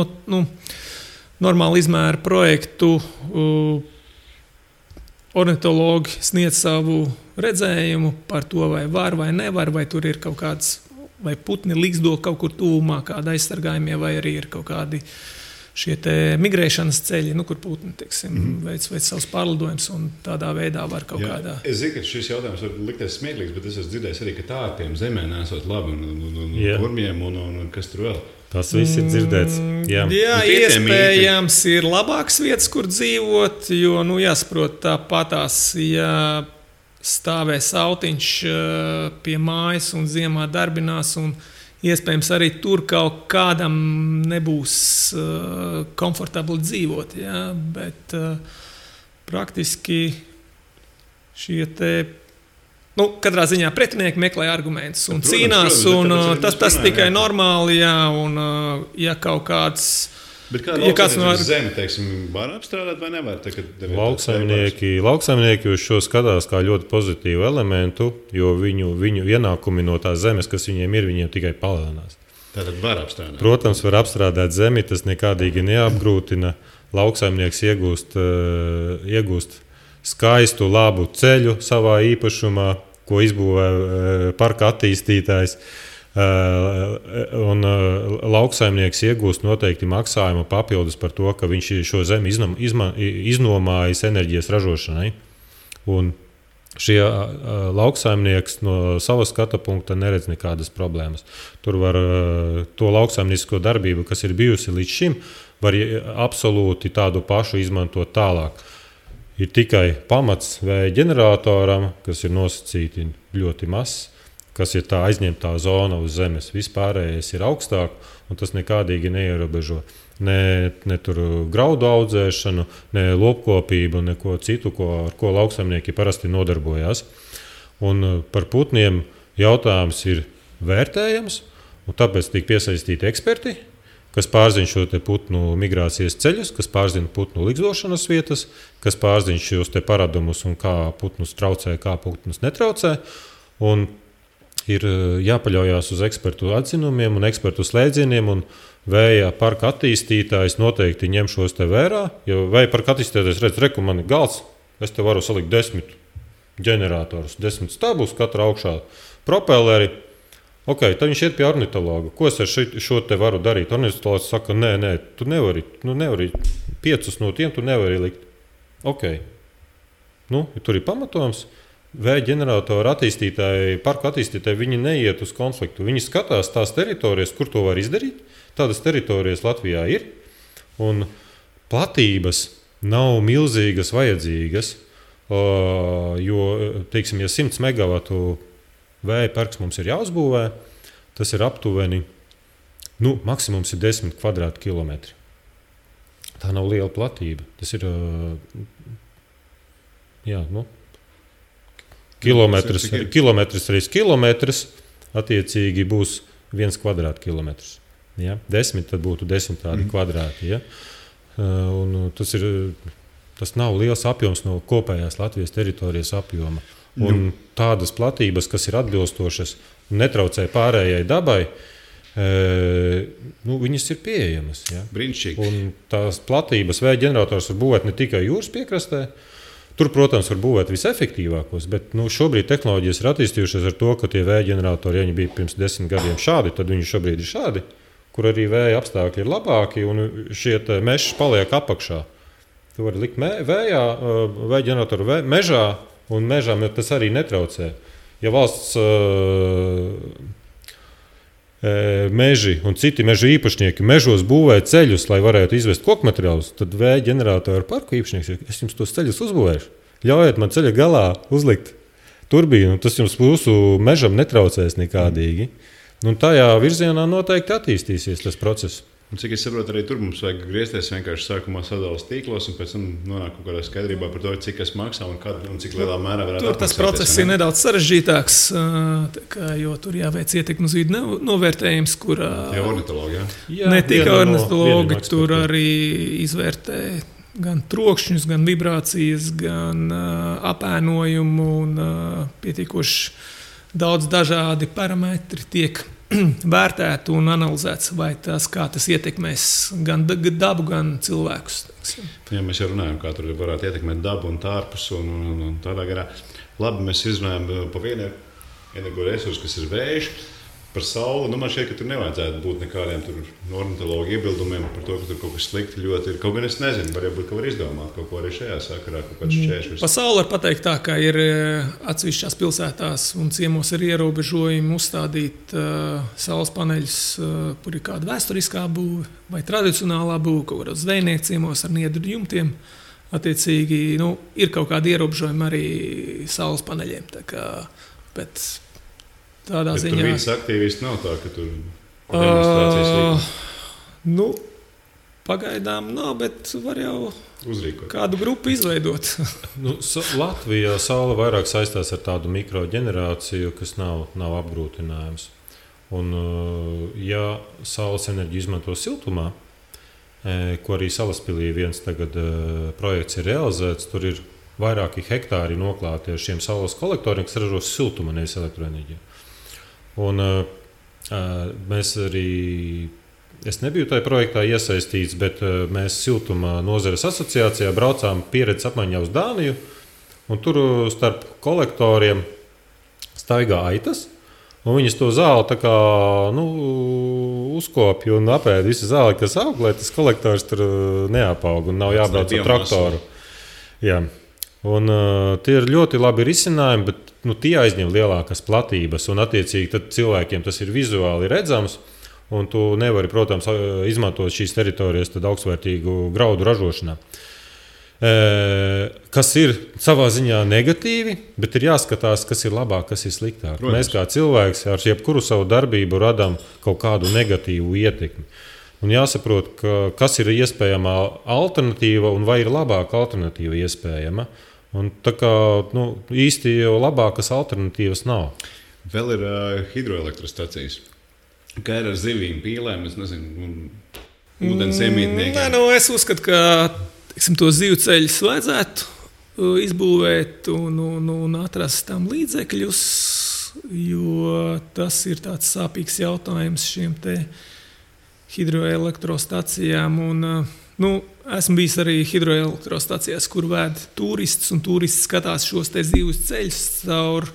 izmēru projektu. Ornitologi sniedz savu redzējumu par to, vai var vai nevar, vai tur ir kaut kāds, vai putni līgzdo kaut kur tuvumā, kāda aizsargājumie, vai arī ir kaut kādi šie te migrēšanas ceļi, kur putni, veic savus pārlidojumus un tādā veidā var kaut kādā. Es zinu, ka šis jautājums var likties smieklīgs, bet es esmu dzirdējis arī, ka tārpiem zemē nesot labi un kurmiem un kas tur vēl. Tas viss ir dzirdēts. Jā, iespējams ir labāks vietas, kur dzīvot, jo, jāsaprot tāpatās, ja stāvēs autiņš pie mājas un ziemā darbinās, un iespējams arī tur kaut kādam nebūs komfortabli dzīvot. Ja? Bet praktiski šie te, katrā ziņā pretinieki meklē argumentus un cīnās, un tas tikai normāli, jā, un ja kaut kāds. Bet kāda zeme, var apstrādāt vai nevar? Lauksaimnieki uz šo skatās kā ļoti pozitīvu elementu, jo viņu ienākumi no tās zemes, kas viņiem tikai palielinās. Tātad var apstrādāt? Protams, var apstrādāt zemi, tas nekādīgi neapgrūtina. Lauksaimnieks iegūst skaistu, labu ceļu savā īpašumā, ko izbūvē parka attīstītājs. Un lauksaimnieks iegūst noteikti maksājumu papildus par to, ka viņš šo zemi iznomājas enerģijas ražošanai. Un šie lauksaimnieks no savas skata punkta neredz nekādas problēmas. Tur var to lauksaimniecisko darbību, kas ir bijusi līdz šim, var absolūti tādu pašu izmantot tālāk. Ir tikai pamats vēja ģeneratoram, kas ir nosacīti ļoti mazs, kas ir tā aizņemtā zona uz zemes. Vispārējais ir augstāk, un tas nekādīgi neierobežo ne tur graudu audzēšanu, ne lopkopību, neko citu, ar ko lauksaimnieki parasti nodarbojās. Un par putniem jautājums ir vērtējams, un tāpēc tiek piesaistīti eksperti, kas pārzina šo te putnu migrācijas ceļus, kas pārzina putnu ligzdošanas vietas, kas pārzina šos te paradumus un kā putnus traucē, kā putnus netraucē. Un ir jāpaļaujās uz ekspertu atzinumiem un ekspertu slēdzieniem, un vēja parka attīstītājs noteikti ņem šos te vērā. Jo vēja parka attīstītājs redz, reku man ir galds, es te varu salikt 10 ģeneratorus, 10 stabus, katra augšā propelleri. Ok, tad viņš iet pie ornitologa. Ko es ar šo te varu darīt? Ornitologs saka, nē, tu nevari 5 no tiem tu nevari likt. Ok, tur ir pamatojums. Vēja ģeneratoru attīstītāji, parku attīstītāji, viņi neiet uz konfliktu. Viņi skatās tās teritorijas, kur to var izdarīt. Tādas teritorijas Latvijā ir. Un platības nav milzīgas vajadzīgas, jo, teiksim, ja 100 megavatu vēja parks mums ir jāuzbūvē, tas ir aptuveni, maksimums ir 10 kvadrātkilometri. Tā nav liela platība. Tas ir, kilometrs reiz kilometrs, attiecīgi būs 1 kvadrātkilometrs. Ja? 10, tad būtu 10 tādi kvadrāti. Ja? Un tas nav liels apjoms no kopējās Latvijas teritorijas apjoma. Un tādas platības, kas ir atbilstošas un netraucē pārējai dabai, viņas ir pieejamas. Ja? Brīnišķīgi. Un tās platības vēja ģenerators var būvēt ne tikai jūras piekrastē. Tur, protams, var būvēt visefektīvākos, bet šobrīd tehnoloģijas ir attīstījušās ar to, ka tie vēja ģeneratori, ja viņi bija pirms 10 gadiem šādi, tad viņi šobrīd ir šādi, kur arī vēja apstākļi ir labāki un šie meži paliek apakšā. Tu vari likt vēja ģeneratoru mežā, un mežām tas arī netraucē. Ja valsts meži un citi meža īpašnieki mežos būvē ceļus, lai varētu izvest koku materiālus, tad vēja ģeneratoru parku īpašnieks saka, es jums tos ceļus uzbūvēšu. Ļaujiet man ceļa galā uzlikt turbīnu, tas jums mūsu mežam netraucēs nekādīgi. Un tajā virzienā noteikti attīstīsies tas process. Un cik es saprotu, arī tur mums vajag griezties vienkārši sākumā sadalas tīklos un pēc tam nonāk kaut kādā skaidrībā par to, cik kas maksā un cik lielā mērā varētu tur tas process ir nedaudz sarežģītāks, jo tur jāveic ietekmes uz vidi novērtējums, kurā ornitologi, ne tikai ornitologi, tur arī izvērtē gan trokšņus, gan vibrācijas, gan apēnojumu un pietiekoši daudz dažādi parametri tiek vērtēt un analizēts, vai kā tas ietekmēs gan dabu, gan cilvēkus. Jā, mēs jau runājam, kā tur varētu ietekmēt dabu un tārpus un tādā garā. Labi, mēs izrunājam pa vienu energoresursu, kas ir vējš. Par sauli, man šķiet, ka tur nevajadzētu būt nekādiem ornitologu iebildumiem par to, ka tur kaut kas slikti ļoti ir. Kaut gan es nezinu, varbūt var izdomāt kaut ko arī šajā sakarā, kaut kāds šķēršļus. Pa sauli var pateikt tā, ka ir atsevišķās pilsētās un ciemos ir ierobežojumi uzstādīt saules paneļus, kur ir kāda vēsturiskā būve vai tradicionālā būve, kaut kādos zvejnieku ciemos ar niedru jumtiem. Attiecīgi, ir kaut kādi ierobežojumi arī saules paneļiem. Bet tādā ziņā. Tur viens aktīvisti nav tā, ka tur demonstrācijas pagaidām nav, bet var jau uzrīkot. Kādu grupu izveidot. Latvijā saule vairāk saistās ar tādu mikroģenerāciju, kas nav apgrūtinājums. Un, ja saules enerģiju izmanto siltumā, ko arī Salaspilī viens tagad projekts ir realizēts, tur ir vairāki hektāri noklāti ar šiem saules kolektoriem, kas ražo siltuma, nevis elektroenerģiju. Un mēs arī, es nebiju tajā projektā iesaistīts, bet mēs siltuma nozares asociācijā braucām pieredzes apmaiņā uz Dāniju, un tur starp kolektoriem staigā aitas, un viņas to zāli tā kā, uzkopja un apēd visu zāli, kas aug, lai tas kolektors tur neapaug un nav jābrauc ar traktoru. Jā. Un, tie ir ļoti labi risinājumi, bet tie aizņem lielākas platības. Un, attiecīgi, tad cilvēkiem tas ir vizuāli redzams. Un tu nevari, protams, izmantot šīs teritorijas augstvērtīgu graudu ražošanā. Kas ir savā ziņā negatīvi, bet ir jāskatās, kas ir labāk, kas ir sliktāk. Protams. Mēs kā cilvēks ar jebkuru savu darbību radām kaut kādu negatīvu ietekmi. Un jāsaprot, kas ir iespējama alternatīva un vai ir labāka alternatīva iespējama. Un tā kā īsti jau labākas alternatīvas nav. Vēl ir hidroelektrostacijas. Kā ir ar zivīm, pīlēm, es nezinu, ūdens iemītniekiem? Es uzskatu, ka to zivu ceļus vajadzētu izbūvēt un atrast tam līdzekļus, jo tas ir tāds sāpīgs jautājums šiem te hidroelektrostacijām. Esmu bijis arī hidroelektrostacijās, kur vēd turists, un turisti skatās šos te zivs ceļus caur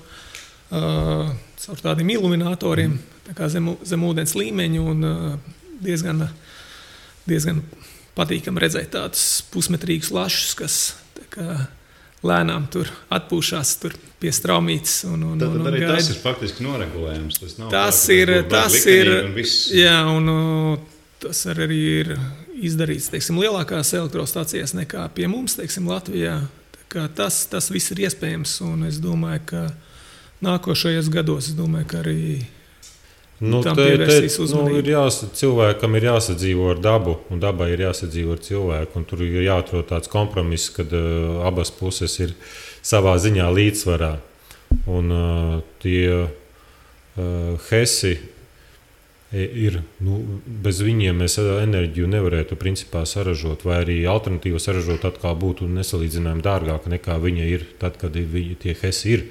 tādiem iluminatoriem, tā kā zem ūdens līmeņa, un diezgan patīkami redzēt tādus pusmetrīgus lašus, kas tā kā lēnām tur atpūšās tur pie straumītes. Tad arī gaida. Tas ir faktiski noregulējums. Tas ir, jā, un tas arī ir izdarīts, teiksim, lielākās elektrostacijas nekā pie mums, teiksim, Latvijā. Tas viss ir iespējams, un es domāju, ka nākošajos gados, ka arī tam pievērsīs uzmanību. Cilvēkam ir jāsadzīvo ar dabu, un dabai ir jāsadzīvo ar cilvēku, un tur ir jāatrod tāds kompromiss, kad abas puses ir savā ziņā līdzsvarā. Un tie hesi ir, bez viņiem mēs enerģiju nevarētu principā saražot, vai arī alternatīvu saražot atkal būtu nesalīdzinājumi dārgāka nekā viņa ir tad, kad tie hesi ir.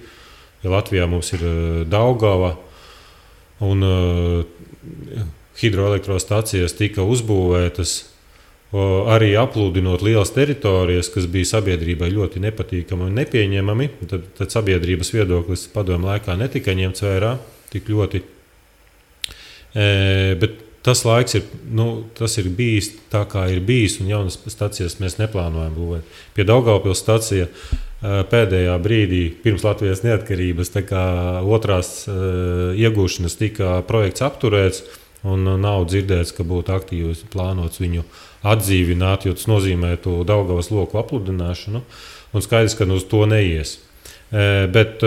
Ja Latvijā mums ir Daugava un hidroelektrostacijas tika uzbūvētas, arī aplūdinot lielas teritorijas, kas bija sabiedrībai ļoti nepatīkami un nepieņemami, tad sabiedrības viedoklis padomju laikā netika ņemts vērā tik ļoti. Bet tas laiks tas ir bijis tā, kā ir bijis, un jaunas stacijas mēs neplānojam būvēt. Pie Daugavpils stacija pēdējā brīdī pirms Latvijas neatkarības otrās iegūšanas tika projekts apturēts, un nav dzirdēts, ka būtu aktīvi plānots viņu atdzīvināt, jo tas nozīmētu Daugavas loku apludināšanu, un skaidrs, ka uz to neies. Bet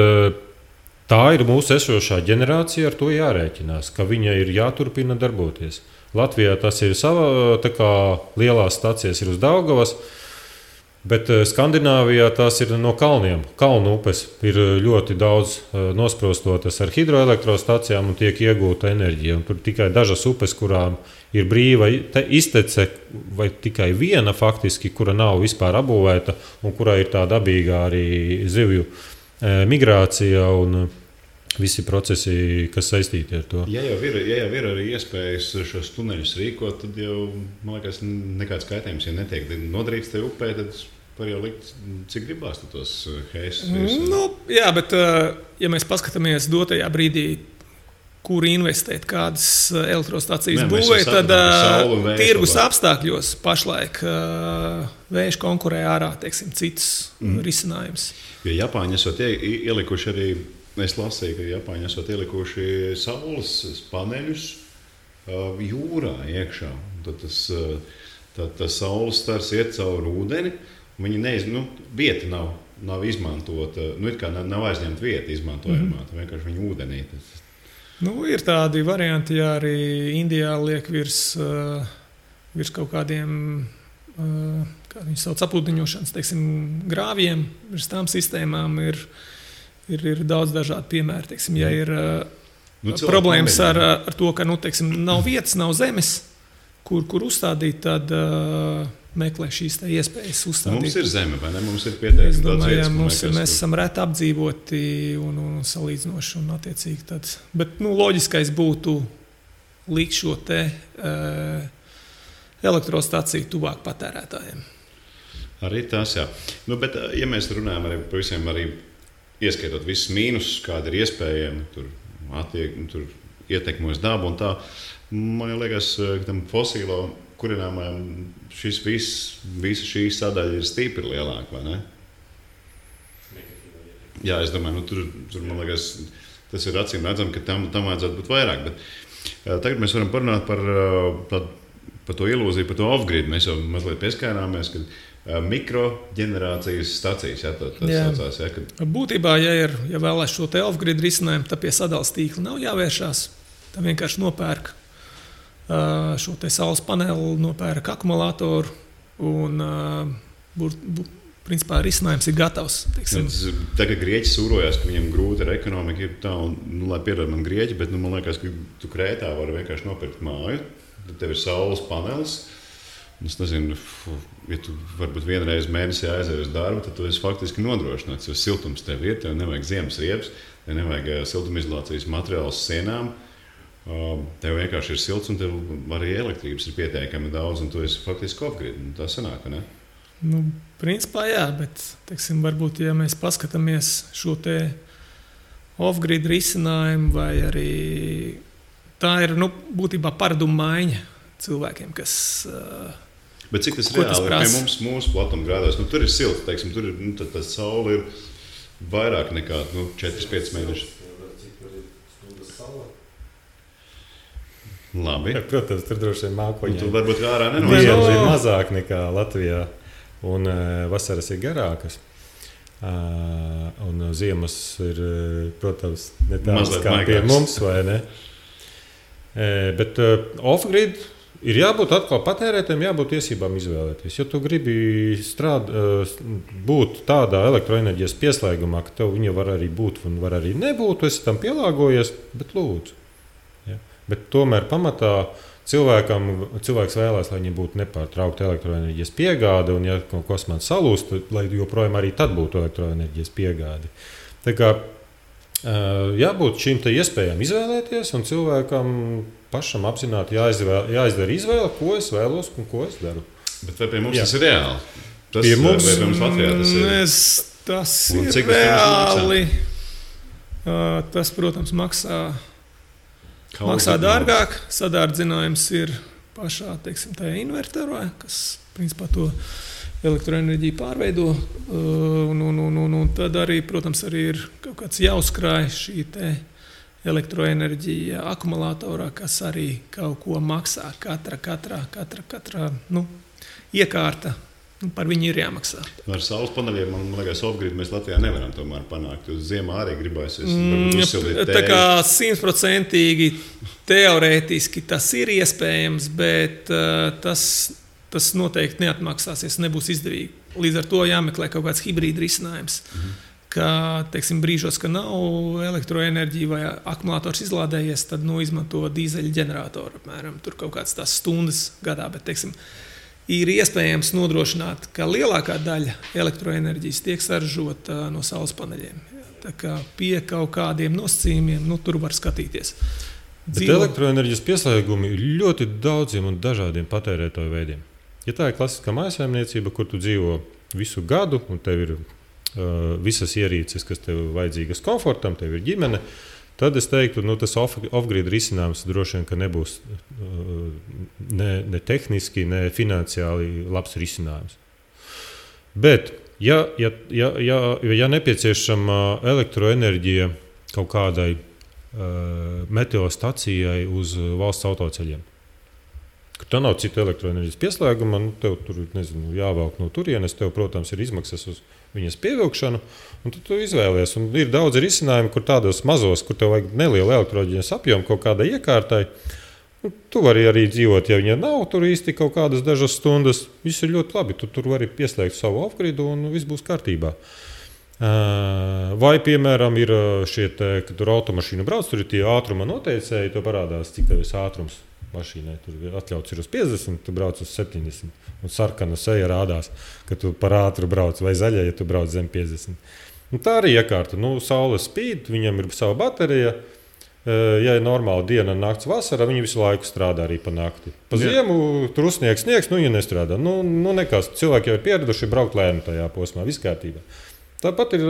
tā ir mūsu esošā ģenerācija, ar to jārēķinās, ka viņa ir jāturpina darboties. Latvijā tas ir sava, lielās stacijas ir uz Daugavas, bet Skandināvijā tās ir no kalniem. Kalnu upes ir ļoti daudz nosprostotas ar hidroelektrostacijām un tiek iegūta enerģija. Un tur tikai dažas upes, kurām ir brīva iztece, vai tikai viena faktiski, kura nav vispār apbūvēta un kurā ir tā dabīgā arī zivju migrācija un visi procesi, kas saistīti ar to. Ja jau ir arī iespējas šos tuneļus rīkot, tad jau, man liekas, nekāds kaitējums, ja netiek nodarīts te upē, tad var jau likt, cik gribās tos heisus. Jā, bet ja mēs paskatāmies dotajā brīdī, kur investēt, kādas elektrostacijas būvē, tad tirgus apstākļos pašlaik vējš konkurē ārā, teiksim, citus risinājumus. Jo Japāņi esot ielikuši arī, es lasīju, ka Japāņi esot ielikuši saules paneļus jūrā iekšā. Tad tas saules stars iet caur ūdeni, un viņi vieta nav izmantota, it kā nav aizņemta vieta izmantojamā, vienkārši viņi ūdenī. Ir tādi varianti, ja arī Indijā liek virs kaut kādiem, kā viņi sauc, aplūdiņošanas, teiksim, grāvjiem, virs tām sistēmām ir daudz dažādu piemēru. Teiksim, ja ir problēmas ar to, ka teiksim, nav vietas, nav zemes, kur uzstādīt, tad meklē šīs iespējas uzstādīt. Mums ir zeme, vai ne? Mums ir pietiekami daudz vietas. Mēs esam reti apdzīvoti un salīdzinoši un attiecīgi tad. Bet loģiskais būtu likt šo te elektrostaciju tuvāk patērētājiem. Arī tas, jā. Bet, ja mēs runājam arī par visiem, arī ieskaitot visus mīnusus, kādi ir iespējami, tur ietekmos dabu un tā, man liekas, ka tam fosīlo kurināmajam visa šī sadaļa ir stipri lielāka, vai ne? Jā, es domāju, tur man liekas, tas ir acīm redzam, ka tam vajadzētu būt vairāk, bet tagad mēs varam parunāt par to ilūziju, par to off-grid. Mēs jau mazliet pieskārāmies, ka mikroģenerācijas stacijas, saucās. Būtībā, ja vēlēs šo te off-grid risinājumu, tad pie sadales tīkla nav jāvēršās. Tā vienkārši nopērk šo te saules paneli, nopērk akumulātoru un principā risinājums ir gatavs. Tagad Grieķi sūrojās, ka viņam grūti ar ekonomiku ir tā, un lai piedod man Grieķi, bet man liekas, ka tu Krētā vari vienkārši nopirkt māju, tad tev ir saules panelis. Es nezinu, ja tu varbūt vienreiz mēnesī aizies uz darbu, tad tu esi faktiski nodrošināts, jo siltums tev ir, tev nevajag ziemas riepas, tev nevajag siltumizolācijas materiālus sienām, tev vienkārši ir silts un tev arī elektrības ir pietiekami daudz, un tu esi faktiski off-grid. Tā sanāk, ne? Principā jā, bet, teiksim, varbūt, ja mēs paskatāmies šo te off-grid risinājumu, vai arī tā ir, būtībā paradumu maiņa cilvēkiem, kas... Bet cik tas reāli ir pie mums, mūsu platumgrādos? Tur ir silts, teiksim, tur ir, tā saule ir vairāk nekā 4-5 mēneši. Labi. Protams, tur droši vien mākoņi. Tur varbūt ārā Diena ir mazāk nekā Latvijā, un vasaras ir garākas. Un ziemas ir, protams, ne tādas kā pie mums, vai ne? Bet off-grid ir jābūt atkal patērētājiem, jābūt tiesībām izvēlēties. Ja tu gribi būt tādā elektroenerģijas pieslēgumā, ka tev viņa var arī būt un var arī nebūt, tu esi tam pielāgojies, bet lūdzu. Ja? Bet tomēr pamatā cilvēks vēlēs, lai viņam būtu nepārtraukta elektroenerģijas piegāde, un ja kaut kas man salūst, lai joprojām arī tad būtu elektroenerģijas piegāde. Tā kā jābūt šīm te iespējām izvēlēties, un cilvēkam pašam apzināti jāizdara izvēle, ko es vēlos un ko es daru. Bet vai pie mums tas ir reāli? Pie mums Latvijā tas ir reāli. Tas, protams, maksā dārgāk. Sadārdzinājums ir pašā, teiksim, tajā inverterā, kas, principā, to elektroenerģiju pārveido. Un tad arī, protams, arī ir kaut kāds jāuzkrāj šī te elektroenerģija akumulatorā, kas arī kaut ko maksā. Katra iekārta. Par viņu ir jāmaksā. Ar saules paneļiem, man liekas, off-grid mēs Latvijā nevaram tomēr panākt. Uz ziemā arī gribēs uzsildīt tēju. Tā kā 100% teorētiski tas ir iespējams, bet tas noteikti neatmaksāsies, nebūs izdevīgi. Līdz ar to jāmeklē kaut kāds hibrīda risinājums. Ka, teiksim, brīžos, ka nav elektroenerģija vai akumulators izlādējies, tad izmanto dīzeļa ģeneratoru. Apmēram, tur kaut kāds tās stundas gadā, bet, teiksim, ir iespējams nodrošināt, ka lielākā daļa elektroenerģijas tiek saražota no saules paneļiem. Tā kā pie kaut kādiem nosacījumiem, tur var skatīties. Bet elektroenerģijas pieslēgumi ir ļoti daudziem un dažādiem patērētāju veidiem. Ja tā ir klasiskā mājsaimniecība, kur tu dzīvo visu gadu, un tev ir visas ierīces, kas tev vajadzīgas komfortam, tev ir ģimene, tad es teiktu, tas off-grid risinājums droši vien, ka nebūs ne tehniski, ne finansiāli labs risinājums. Bet, ja nepieciešama elektroenerģija kaut kādai meteostacijai uz valsts autoceļiem, ka tā nav cita elektroenerģijas pieslēguma, tev tur, jāvelk no turienes, tev, protams, ir izmaksas uz viņas pievilkšanu, un tu izvēlies. Un ir daudz risinājumu, kur tādos mazos, kur tev vajag nelielu elektroenerģijas apjomu kaut kādai iekārtai. Tu vari arī dzīvot, ja viņa nav tur īsti kaut kādas dažas stundas. Viss ir ļoti labi. Tu tur vari pieslēgt savu off-gridu un viss būs kārtībā. Vai, piemēram, ir šie, kad tur automašīnu brauc, tur ir tie ātruma noteicēji, to parādās, cik tev ir ātrums mašīnai. Tur atļauts ir uz 50, tu brauc uz 70. Un sarkana seja rādās, ka tu par ātru brauc, vai zaļa, ja tu brauc zem 50. Un tā arī iekārta. Saule spīd, viņam ir sava baterija. Ja ir normāla diena un nakts vasara, viņi visu laiku strādā arī pa nakti. Pa ziemu tur uzsniegs, viņa nestrādā. Nekas. Cilvēki jau ir pieraduši braukt lēni tajā posmā, viss kārtībā. Tāpat ir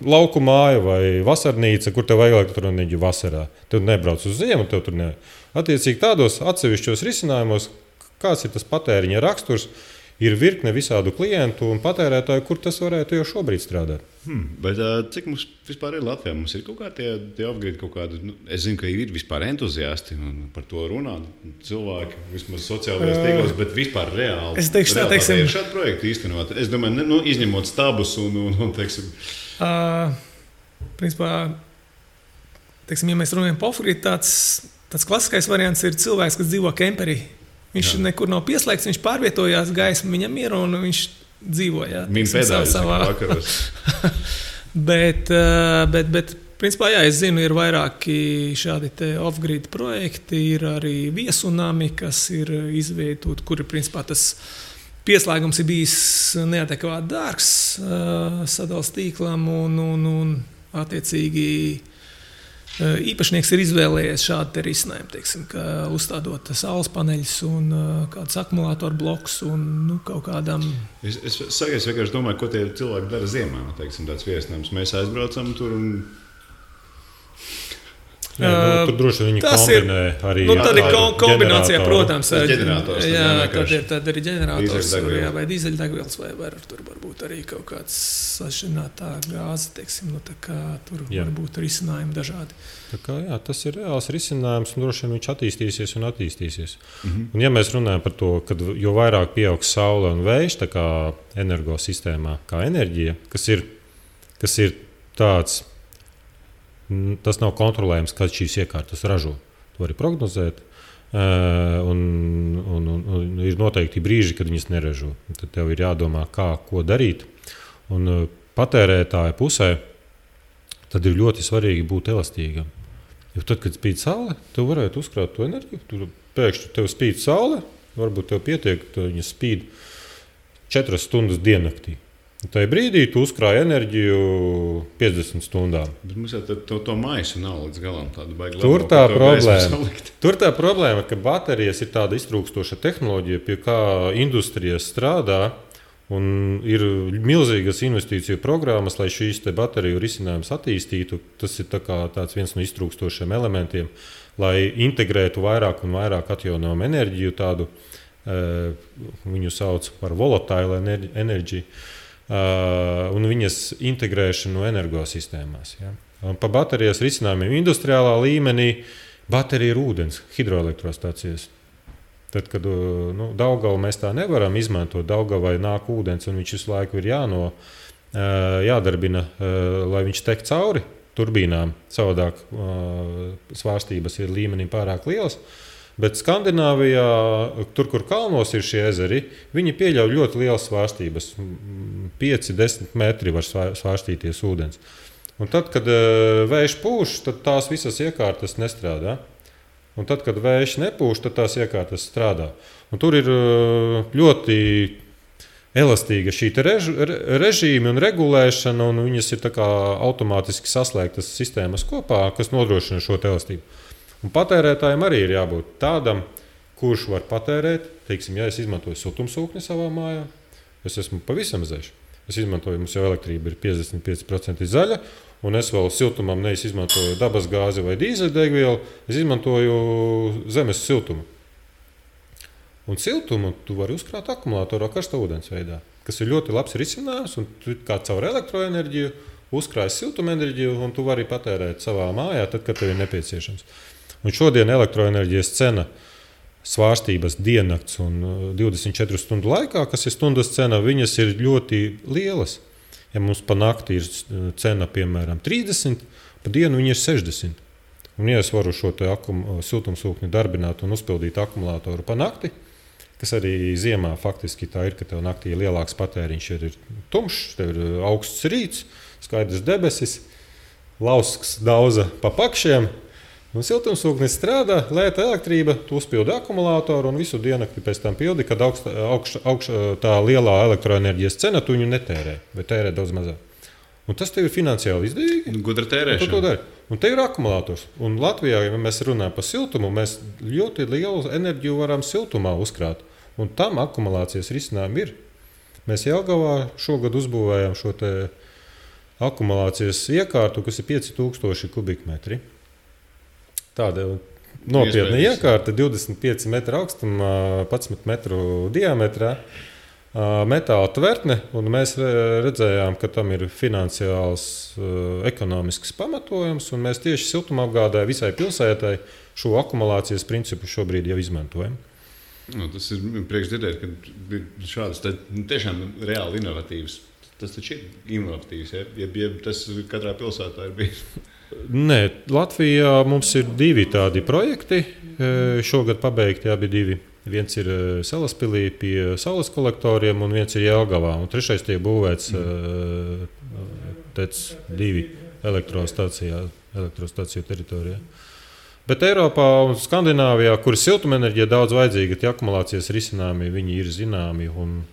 lauku māja vai vasarnīca, kur tev vajag elektroenerģiju vasarā. Tev nebrauc uz ziemu, tev tur ne. Attiecīgi tādos atsevišķos risinājumos, kāds ir tas patēriņa raksturs, ir virkne visādu klientu un patērētāju, kur tas varētu jau šobrīd strādāt. Bet cik mums vispār ir Latvijā? Mums ir kaut kādi off-grid kaut kādi, es zinu, ka ir vispār entuziasti un par to runā cilvēki, vismaz sociālajos tīklos, bet vispār reāli. Es teikšu tā, teiksim. Ir šādi projekti īstenot. Es domāju, izņemot stabus un teiksim. Principā, teiksim, ja mēs runājam par off-grid, tāds klasiskais variants ir cilvēks, kas dzīvo kemperī. Viņš nekur nav pieslēgts, viņš pārvietojās, gaisma viņam ir un viņš dzīvo. Viņa pēdējais vakaros. bet, principā, es zinu, ir vairāki šādi te off-grid projekti, ir arī viesunami, kas ir izveidoti, kuri, principā, tas pieslēgums ir bijis neadekvāti dārgs sadales tīklam un attiecīgi īpašnieks ir izvēlējies šādu risinājumu, teiksim, ka uzstādot saules paneļus un kādus akumulātoru blokus un kaut kādam. Es vienkārši domāju, ko tie cilvēki dara ziemā, teiksim, tāds viesinājums. Mēs aizbraucam tur un Tur droši vien viņi kombinē arī. Tad ir kombinācijā, protams. Tad ir ģenerators vai dīzeļdegvielas, vai tur varbūt arī kaut kāds sašķirinātā gāze, teiksim, tur varbūt risinājumi dažādi. Tas ir reāls risinājums, un droši vien viņš attīstīsies. Un ja mēs runājam par to, ka jo vairāk pieaugs saule un vējš energosistēmā, kā enerģija, kas ir tāds, tas nav kontrolējams, kad šīs iekārtas ražo. To var prognozēt, un ir noteikti brīži, kad viņas neražo. Tad tev ir jādomā, ko darīt. Un patērētāja pusē tad ir ļoti svarīgi būt elastīgam. Jo tad, kad spīd saule, tu varētu uzkrāt to enerģiju. Tur pēkšņi tev spīd saule, varbūt tev pietiek, ka viņa spīd 4 stundas diennaktī. Tajā brīdī tu uzkrāji enerģiju 50 stundām. Bet mums jau to maisu nav līdz galam. Tur tā problēma, ka baterijas ir tāda iztrūkstoša tehnoloģija, pie kā industrija strādā. Un ir milzīgas investīciju programmas, lai šīs bateriju risinājumus attīstītu. Tas ir viens no iztrūkstošiem elementiem, lai integrētu vairāk un vairāk atjaunojumu enerģiju. Viņu sauc par volatile enerģiju. Un viņas integrēšanu energosistēmās. Ja? Pa baterijas risinājumiem industriālā līmenī baterija ir ūdens, hidroelektrostācijas. Tad, kad Daugavu mēs tā nevaram izmantot, Daugavai nāk ūdens un viņš visu laiku ir jādarbina, lai viņš tek cauri turbīnām. Savādāk svārstības ir līmenim pārāk lielas. Bet Skandināvijā, tur, kur kalnos ir šie ezeri, viņi pieļauj ļoti lielas svārstības. 5-10 metri var svārstīties ūdens. Un tad, kad vējš pūš, tad tās visas iekārtas nestrādā. Un tad, kad vējš nepūš, tad tās iekārtas strādā. Un tur ir ļoti elastīga šī režīma un regulēšana, un viņas ir automātiski saslēgtas sistēmas kopā, kas nodrošina šo elastību. Un patērētājiem arī ir jābūt tādam, kurš var patērēt. Teiksim, ja es izmantoju siltumsūkni savā mājā, es esmu pavisam zaļš. Es izmantoju, mums jau elektrība ir 55% zaļa, un es vēl siltumam neizmantoju dabas gāzi vai dīzeļdegvielu, es izmantoju zemes siltumu. Un siltumu tu vari uzkrāt akumulatorā karsta ūdens veidā, kas ir ļoti labs risinājums, un tu kā caur elektroenerģiju uzkrāji siltumenerģiju, un tu vari patērēt savā mājā, tad, kad tev ir nepieciešams. Un šodien elektroenerģijas cena svārstības diennakts un 24 stundu laikā, kas ir stundas cena, viņas ir ļoti lielas. Ja mums pa nakti ir cena, piemēram, 30, pa dienu viņa ir 60. Un ja es varu šo siltumsūkni darbināt un uzpildīt akumulātoru pa nakti, kas arī ziemā faktiski tā ir, ka tev naktī ir lielāks patēriņš, ir tumšs, tev ir augsts rīts, skaidrs debesis, lausks dauza pa pakšiem. Un siltumsūknis strādā, lēta elektrība, tu uzpildi akumulātoru un visu diennakti pēc tam pildi, kad tā lielā elektroenerģijas cena tu viņu netērē, vai tērē daudz mazāk. Un tas tev ir finansiāli izdevīgi. Gudra tērēšana. Un te ir akumulātors. Un Latvijā, ja mēs runājam par siltumu, mēs ļoti lielu enerģiju varam siltumā uzkrāt. Un tam akumulācijas risinājumi ir. Mēs Jelgavā šogad uzbūvējām šo akumulācijas iekārtu, kas ir 5000 kubikmetri. Tāda nopietna iekārta, 25 metru augstumā, 11 metru diametrā, metāla tvertne, un mēs redzējām, ka tam ir finansiāls, ekonomisks pamatojums, un mēs tieši siltumapgādē visai pilsētai šo akumulācijas principu šobrīd jau izmantojam. Tas ir priekšdzirdēt, ka šādas tiešām reāli inovatīvas. Tas taču ir inovatīvs, ja tas katrā pilsētā ir bijis. Nē, Latvijā mums ir 2 tādi projekti. Šogad pabeigti abi 2. Viens ir Salaspilī pie saules kolektoriem, un viens ir Jelgavā. Un 3. tiek būvēts TEC 2 elektrostaciju teritorijā. Bet Eiropā un Skandināvijā, kur ir siltumenerģija daudz vajadzīga, tie akumulācijas risinājumi viņi ir zināmi, un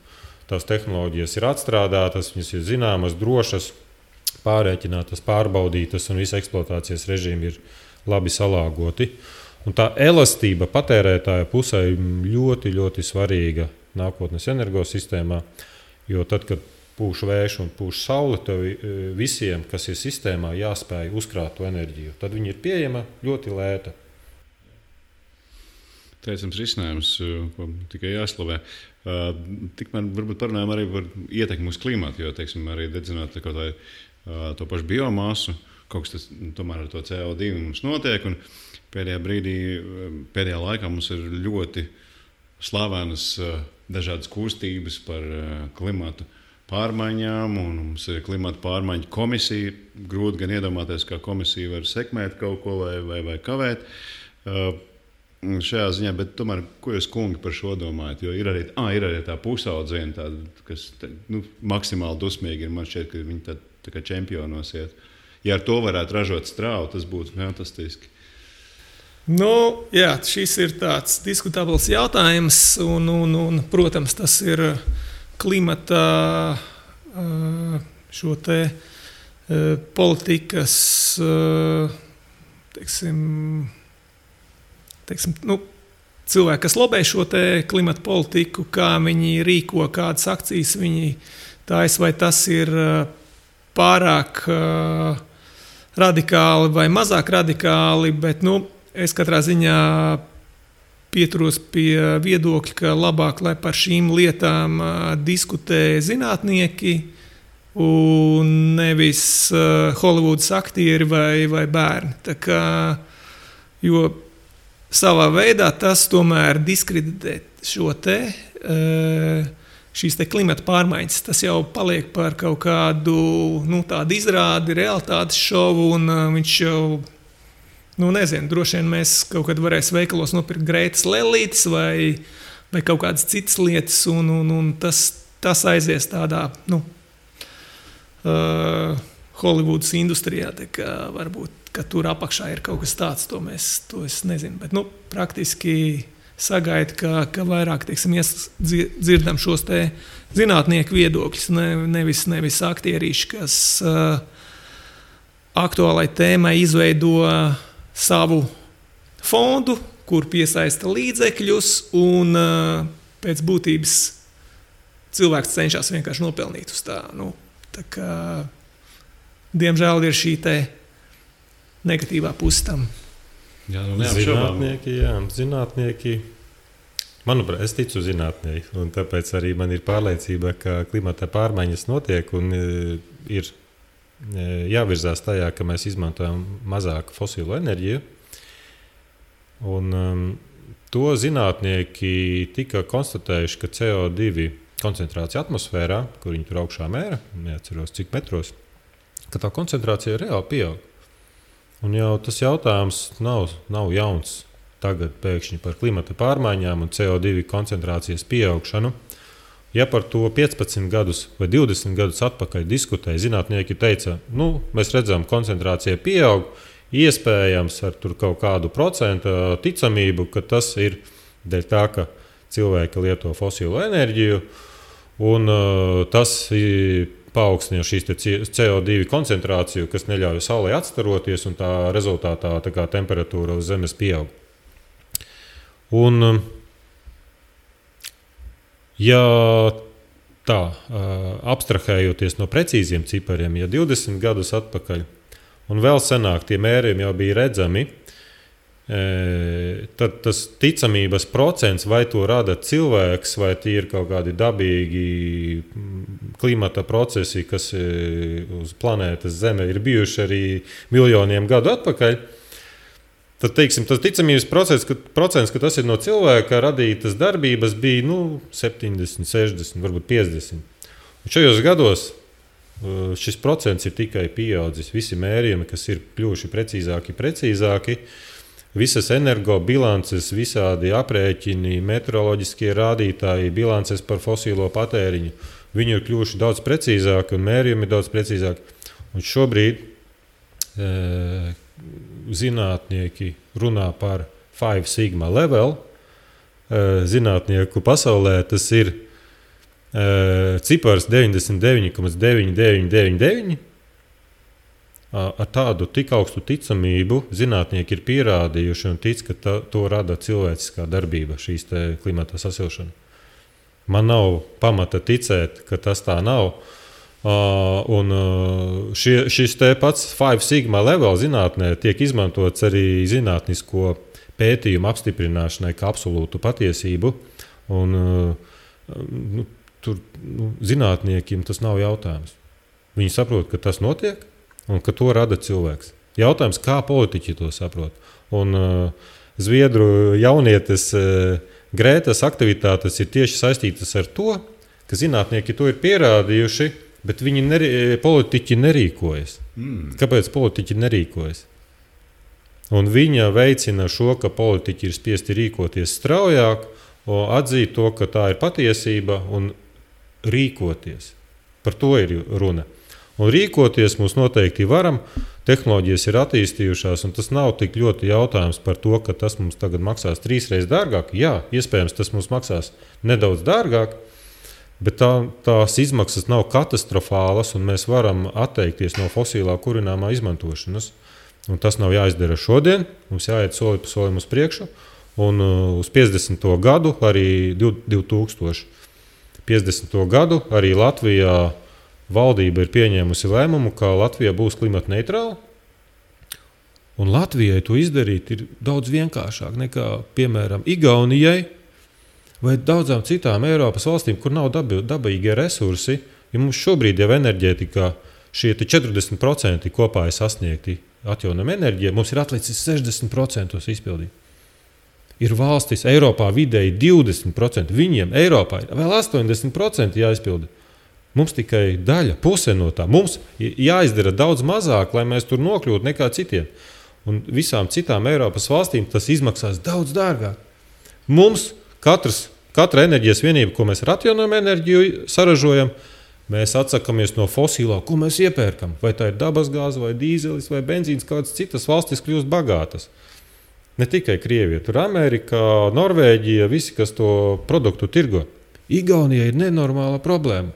tās tehnoloģijas ir atstrādātas, viņas ir zināmas, drošas, pārēķinātas, pārbaudītas, un visa eksploatācijas režīmi ir labi salāgoti. Un tā elastība patērētāja pusē ir ļoti, ļoti svarīga nākotnes energosistēmā, jo tad, kad pūš vējš un pūš saule, tev visiem, kas ir sistēmā, jāspēj uzkrāt to enerģiju. Tad viņi ir pieejama ļoti lēta. Teicams risinājums, ko tikai jāslavē. Tikmēr varbūt parunājam arī par ietekmi uz klimatu, jo, teiksim, arī dedzināt to pašu biomasu, kaut kas tas tomēr ar to CO2 mums notiek, un pēdējā laikā mums ir ļoti slavenas dažādas kustības par klimatu pārmaiņām, un mums ir klimata pārmaiņu komisija. Grūti gan iedomāties, kā komisija var sekmēt kaut ko vai kavēt šajā ziņā, bet tomēr, ko jūs, kungi, par šo domājat? Jo ir arī tā pusaudziena, kas maksimāli dusmīgi ir. Man šķiet, ka viņi tā kā čempionos iet. Ja ar to varētu ražot strāvu, tas būtu fantastiski. Jā, šis ir tāds diskutabls jautājums, un protams, tas ir klimata šo te politikas, teiksim, cilvēki, kas lobē šo te klimata politiku, kā viņi rīko, kādas akcijas viņi taisa, vai tas ir pārāk radikāli vai mazāk radikāli, bet es katrā ziņā pieturos pie viedokļa, ka labāk, lai par šīm lietām diskutē zinātnieki un nevis Holivudas aktieri vai bērni. Tā kā, jo savā veidā tas tomēr diskreditē šīs te klimata pārmaiņas. Tas jau paliek par kaut kādu tādu izrādi, realitātes šovu, un viņš jau nezinu, droši vien mēs kaut kad varēsim veikalos nopirkt Grētas lellītes vai kaut kādas citas lietas, un tas aizies tādā Holivudas industrijā, tā kā varbūt, ka tur apakšā ir kaut kas tāds, to es nezinu, bet praktiski sagaidu, ka vairāk, teiksim, dzirdam šos te zinātnieku viedokļus, nevis aktierīši, kas aktuālai tēmai izveido savu fondu, kur piesaista līdzekļus, un pēc būtības cilvēks cenšas vienkārši nopelnīt uz tā. Tā kā, diemžēl, ir šī te negatīvā puse tam. Zinātnieki. Manuprāt, es ticu zinātnieki, un tāpēc arī man ir pārliecība, ka klimata pārmaiņas notiek un ir jāvirzās tajā, ka mēs izmantojam mazāk fosilo enerģiju. Un, to zinātnieki tika konstatējuši, ka CO2 koncentrācija atmosfērā, kur viņi tur augšā mēra, neatceros cik metros, ka tā koncentrācija reāli pieaug. Un jau tas jautājums nav jauns tagad pēkšņi par klimata pārmaiņām un CO2 koncentrācijas pieaugšanu. Ja par to 15 gadus vai 20 gadus atpakaļ diskutēja, zinātnieki teica, mēs redzam, koncentrācija pieaug, iespējams ar tur kaut kādu procentu ticamību, ka tas ir dēļ tā, ka cilvēki lieto fosilo enerģiju, un tas paaugstina šīs CO2 koncentrāciju, kas neļauj saulei atstaroties, un tā rezultātā tā kā temperatūra uz Zemes pieaug. Un ja tā, abstrahējoties no precīziem cipariem, ja 20 gadus atpakaļ un vēl senāk tie mērījumi jau bija redzami, tad tas ticamības procents, vai to rada cilvēks, vai tie ir kaut kādi dabīgi klimata procesi, kas uz planētas Zeme ir bijuši arī miljoniem gadu atpakaļ, tad, teiksim, tas ticamības procents, ka tas ir no cilvēka radītas darbības, bija 70, 60, varbūt 50. Un šajos gados šis procents ir tikai pieaudzis. Visi mērījumi, kas ir kļuvuši precīzāki, visas energobilances, visādi aprēķini, meteoroloģiskie rādītāji, bilances par fosilo patēriņu, viņi ir kļuvuši daudz precīzāki un mērījumi daudz precīzāki. Un šobrīd zinātnieki runā par 5 sigma level. Zinātnieku pasaulē tas ir cipars 99,9999. Ar tādu tik augstu ticamību zinātnieki ir pierādījuši un tic, ka to rada cilvēciskā darbība, šīs te klimata sasilšana. Man nav pamata ticēt, ka tas tā nav. Un šis te pats 5 sigma level zinātnē tiek izmantots arī zinātnisko pētījumu apstiprināšanai kā absolūtu patiesību. Un, tur zinātniekiem tas nav jautājums. Viņi saprot, ka tas notiek un ka to rada cilvēks. Jautājums, kā politiķi to saprot. Un Zviedru jaunietes Grētas aktivitātes ir tieši saistītas ar to, ka zinātnieki to ir pierādījuši, bet politiķi nerīkojas. Kāpēc politiķi nerīkojas? Un viņa veicina šo, ka politiķi ir spiesti rīkoties straujāk, atzīt to, ka tā ir patiesība un rīkoties. Par to ir runa. Un rīkoties mums noteikti varam. Tehnoloģijas ir attīstījušās, un tas nav tik ļoti jautājums par to, ka tas mums tagad maksās 3 reizes dārgāk. Jā, iespējams, tas mums maksās nedaudz dārgāk, bet tās izmaksas nav katastrofālas, un mēs varam atteikties no fosilā kurināmā izmantošanas. Un tas nav jāizdara šodien, mums jāiet soli pa solim uz priekšu, un uz 50. gadu, arī 2050. gadu, arī Latvijā valdība ir pieņēmusi lēmumu, ka Latvija būs klimata neitrāla. Un Latvijai to izdarīt ir daudz vienkāršāk nekā, piemēram, Igaunijai vai daudzām citām Eiropas valstīm, kur nav dabīgie resursi. Ja mums šobrīd jau enerģētikā šie 40% kopā ir sasniegti atjaunojama enerģija, mums ir atlicis 60% izpildīt. Ir valstis Eiropā vidēji 20%, viņiem Eiropā ir vēl 80% jāizpilda. Mums tikai daļa, puse no tā. Mums jāizdara daudz mazāk, lai mēs tur nokļūtu nekā citiem. Un visām citām Eiropas valstīm tas izmaksās daudz dārgāk. Mums katra enerģijas vienība, ko mēs ar atjaunojumu enerģiju saražojam, mēs atsakamies no fosilā, ko mēs iepērkam. Vai tā ir dabasgāze, vai dīzelis, vai benzīns, kādas citas valstis kļūst bagātas. Ne tikai Krievija, tur Amerika, Norvēģija, visi, kas to produktu tirgo. Igaunija ir nenormāla problēma.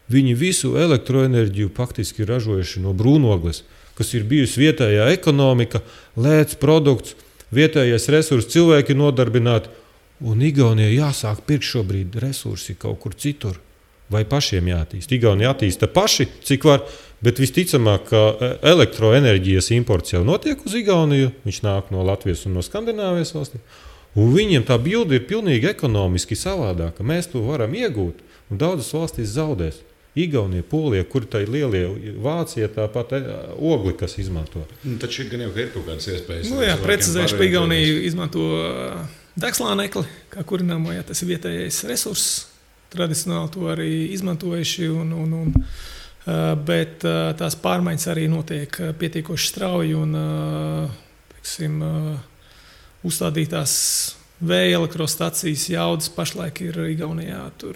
Viņi visu elektroenerģiju faktiski ir ražojuši no brūnogles, kas ir bijusi vietējā ekonomika, lēts produkts, vietējais resurss, cilvēki nodarbināti. Un Igaunijai jāsāk pirkt šobrīd resursi kaut kur citur. Vai pašiem jātīst? Igaunija attīsta paši, cik var, bet visticamāk, ka elektroenerģijas imports jau notiek uz Igauniju. Viņš nāk no Latvijas un no Skandināvijas valstīm. Un viņiem tā bilde ir pilnīgi ekonomiski savādāka. Mēs to varam iegūt, un daudzas valstis zaudēs. Igaunija, Polija, kur tā ir lielie, Vācija, tāpat ogli, kas izmanto. Taču gan jau ir kaut kādas iespējas. Jā, precizēšu, ka Igaunija izmanto degslānekli, kā kurināmo, ja tas ir vietējais resurss. Tradicionāli to arī izmantojuši, bet tās pārmaiņas arī notiek pietiekoši strauji un uzstādītās vēja elektrostacijas jaudas pašlaik ir Igaunijā tur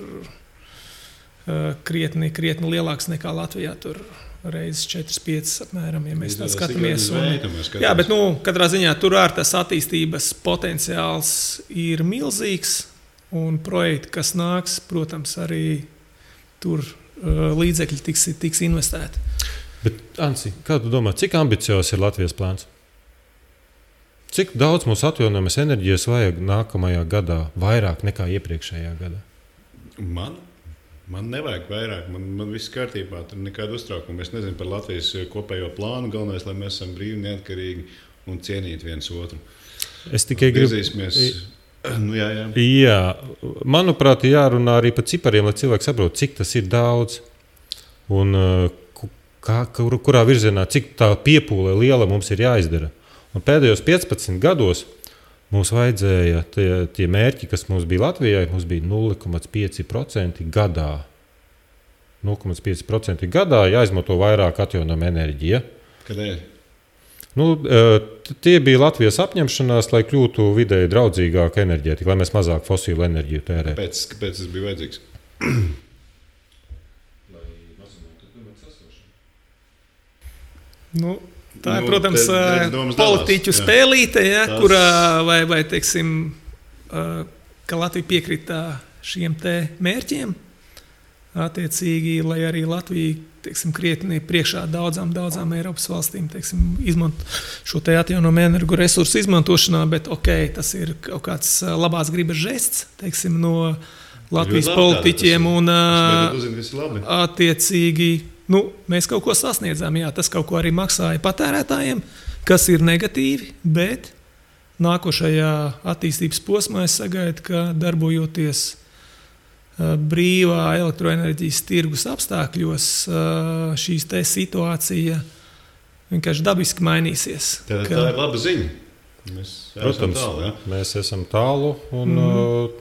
krietni lielāks nekā Latvijā, tur reizes 4-5 apmēram, ja mēs tā skatāmies. Jā, bet katrā ziņā tur tas attīstības potenciāls ir milzīgs, un projekti, kas nāks, protams, arī tur līdzekļi tiks investēti. Bet, Ansi, kā tu domā, cik ambiciozs ir Latvijas plāns? Cik daudz mums atjaunojamas enerģijas vajag nākamajā gadā, vairāk nekā iepriekšējā gadā? Man nevajag vairāk, man viss kārtībā, tur nekāda uztraukuma. Es nezinu par Latvijas kopējo plānu, galvenais, lai mēs esam brīvi, neatkarīgi un cienīti viens otru. Es tikai gribu... Jā, manuprāt, jārunā arī par cipariem, lai cilvēki saprot, cik tas ir daudz un kurā virzienā, cik tā piepūle liela mums ir jāizdara. Un pēdējos 15 gados mums vajadzēja tie mērķi, kas mums bija Latvijai, mums bija 0,5% gadā. 0,5% gadā jāizmanto vairāk atjaunojama enerģija. Kādēļ? Tie bija Latvijas apņemšanās, lai kļūtu vidēji draudzīgāka enerģētika, lai mēs mazāk fosilu enerģiju tērētu. Kāpēc tas bija vajadzīgs? Tā ir, protams, politiķu spēlīte, kurā vai teiksim, ka Latvija piekrita šiem te mērķiem. Attiecīgi, lai arī Latvija, teiksim, krietni priekšā daudzām Eiropas valstīm, teiksim, izmanto šo te atjaunojumu energoresursu izmantošanā, bet tas ir kaut kāds labās gribas žests, teiksim, no Latvijas politiķiem un attiecīgi mēs kaut ko sasniedzām. Jā, tas kaut ko arī maksāja patērētājiem, kas ir negatīvi, bet nākošajā attīstības posmā es sagaidu, ka darbojoties brīvā elektroenerģijas tirgus apstākļos, šīs te situācija vienkārši dabiski mainīsies. Tā ir laba ziņa. Protams, mēs esam tālu, un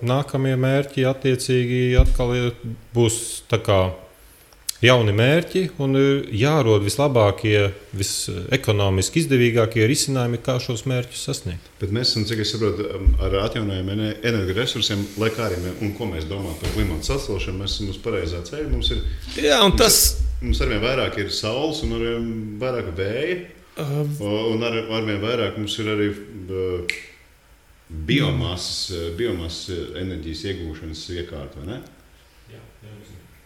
nākamie mērķi attiecīgi atkal būs tā kā jauni mērķi, un jārod vislabākie, visekonomiski izdevīgākie risinājumi, kā šos mērķus sasniegt. Bet mēs esam, cik es saprotu, ar atjaunojumiem energoresursiem, lai kā arī un ko mēs domājam par klimata sasilšanu, mēs esam uz pareizā ceļa. Mums arvien vairāk ir saules un arvien vairāk vēja. Un arvien vairāk mums ir arī biomasas enerģijas iegūšanas iekārta, vai ne? Jā.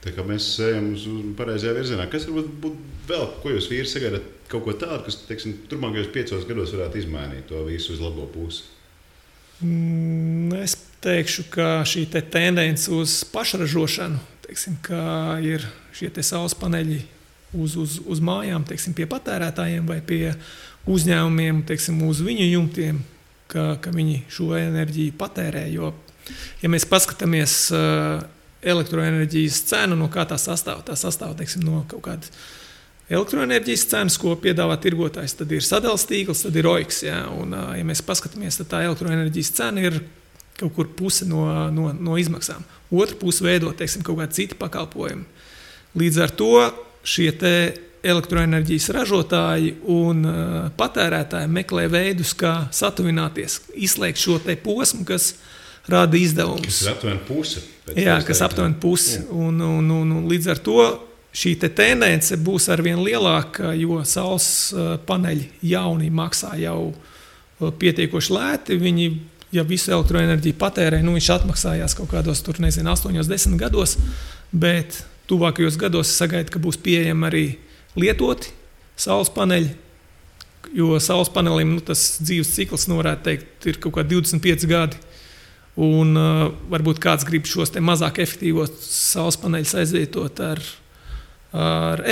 Tā kā mēs ejam uz pareizajā virzienā. Kas varbūt būtu vēl, ko jūs vīri sagaidat kaut ko tādu, kas, teiksim, turpmākajos 5 gados varētu izmainīt to visu uz labo pusi? Es teikšu, ka šī tendence uz pašražošanu, teiksim, ka ir šie saules paneļi uz mājām, teiksim, pie patērētājiem vai pie uzņēmumiem, teiksim, uz viņu jumtiem, ka viņi šo enerģiju patērē. Jo, ja mēs paskatāmies elektroenerģijas cenu, no kā tā sastāv, teiksim, no kaut kādas elektroenerģijas cenas, ko piedāvā tirgotājs, tad ir sadales tīkls, tad ir OIKS. Ja? Un, ja mēs paskatāmies, tad tā elektroenerģijas cena ir kaut kur puse no izmaksām. Otra puse veido, teiksim, kaut kādi citi pakalpojumi. Līdz ar to šie elektroenerģijas ražotāji un patērētāji meklē veidus, kā satuvināties, izslēgt šo posmu, kas rada izdevumus. Kas ir aptuveni puse. Jā, kas aptuveni puse. Un līdz ar to šī tendence būs arvien lielāka, jo saules paneļi jauni maksā jau pietiekoši lēti. Viņi, ja visu elektroenerģiju patērē, viņš atmaksājās kaut kādos 8-10 gados, bet tuvākajos gados es sagaidu, ka būs pieejami arī lietoti saules paneļi, jo saules panelim tas dzīves cikls, varētu teikt, ir kaut kā 25 gadi. Un varbūt kāds grib šos mazāk efektīvos saules paneļus aizvietot ar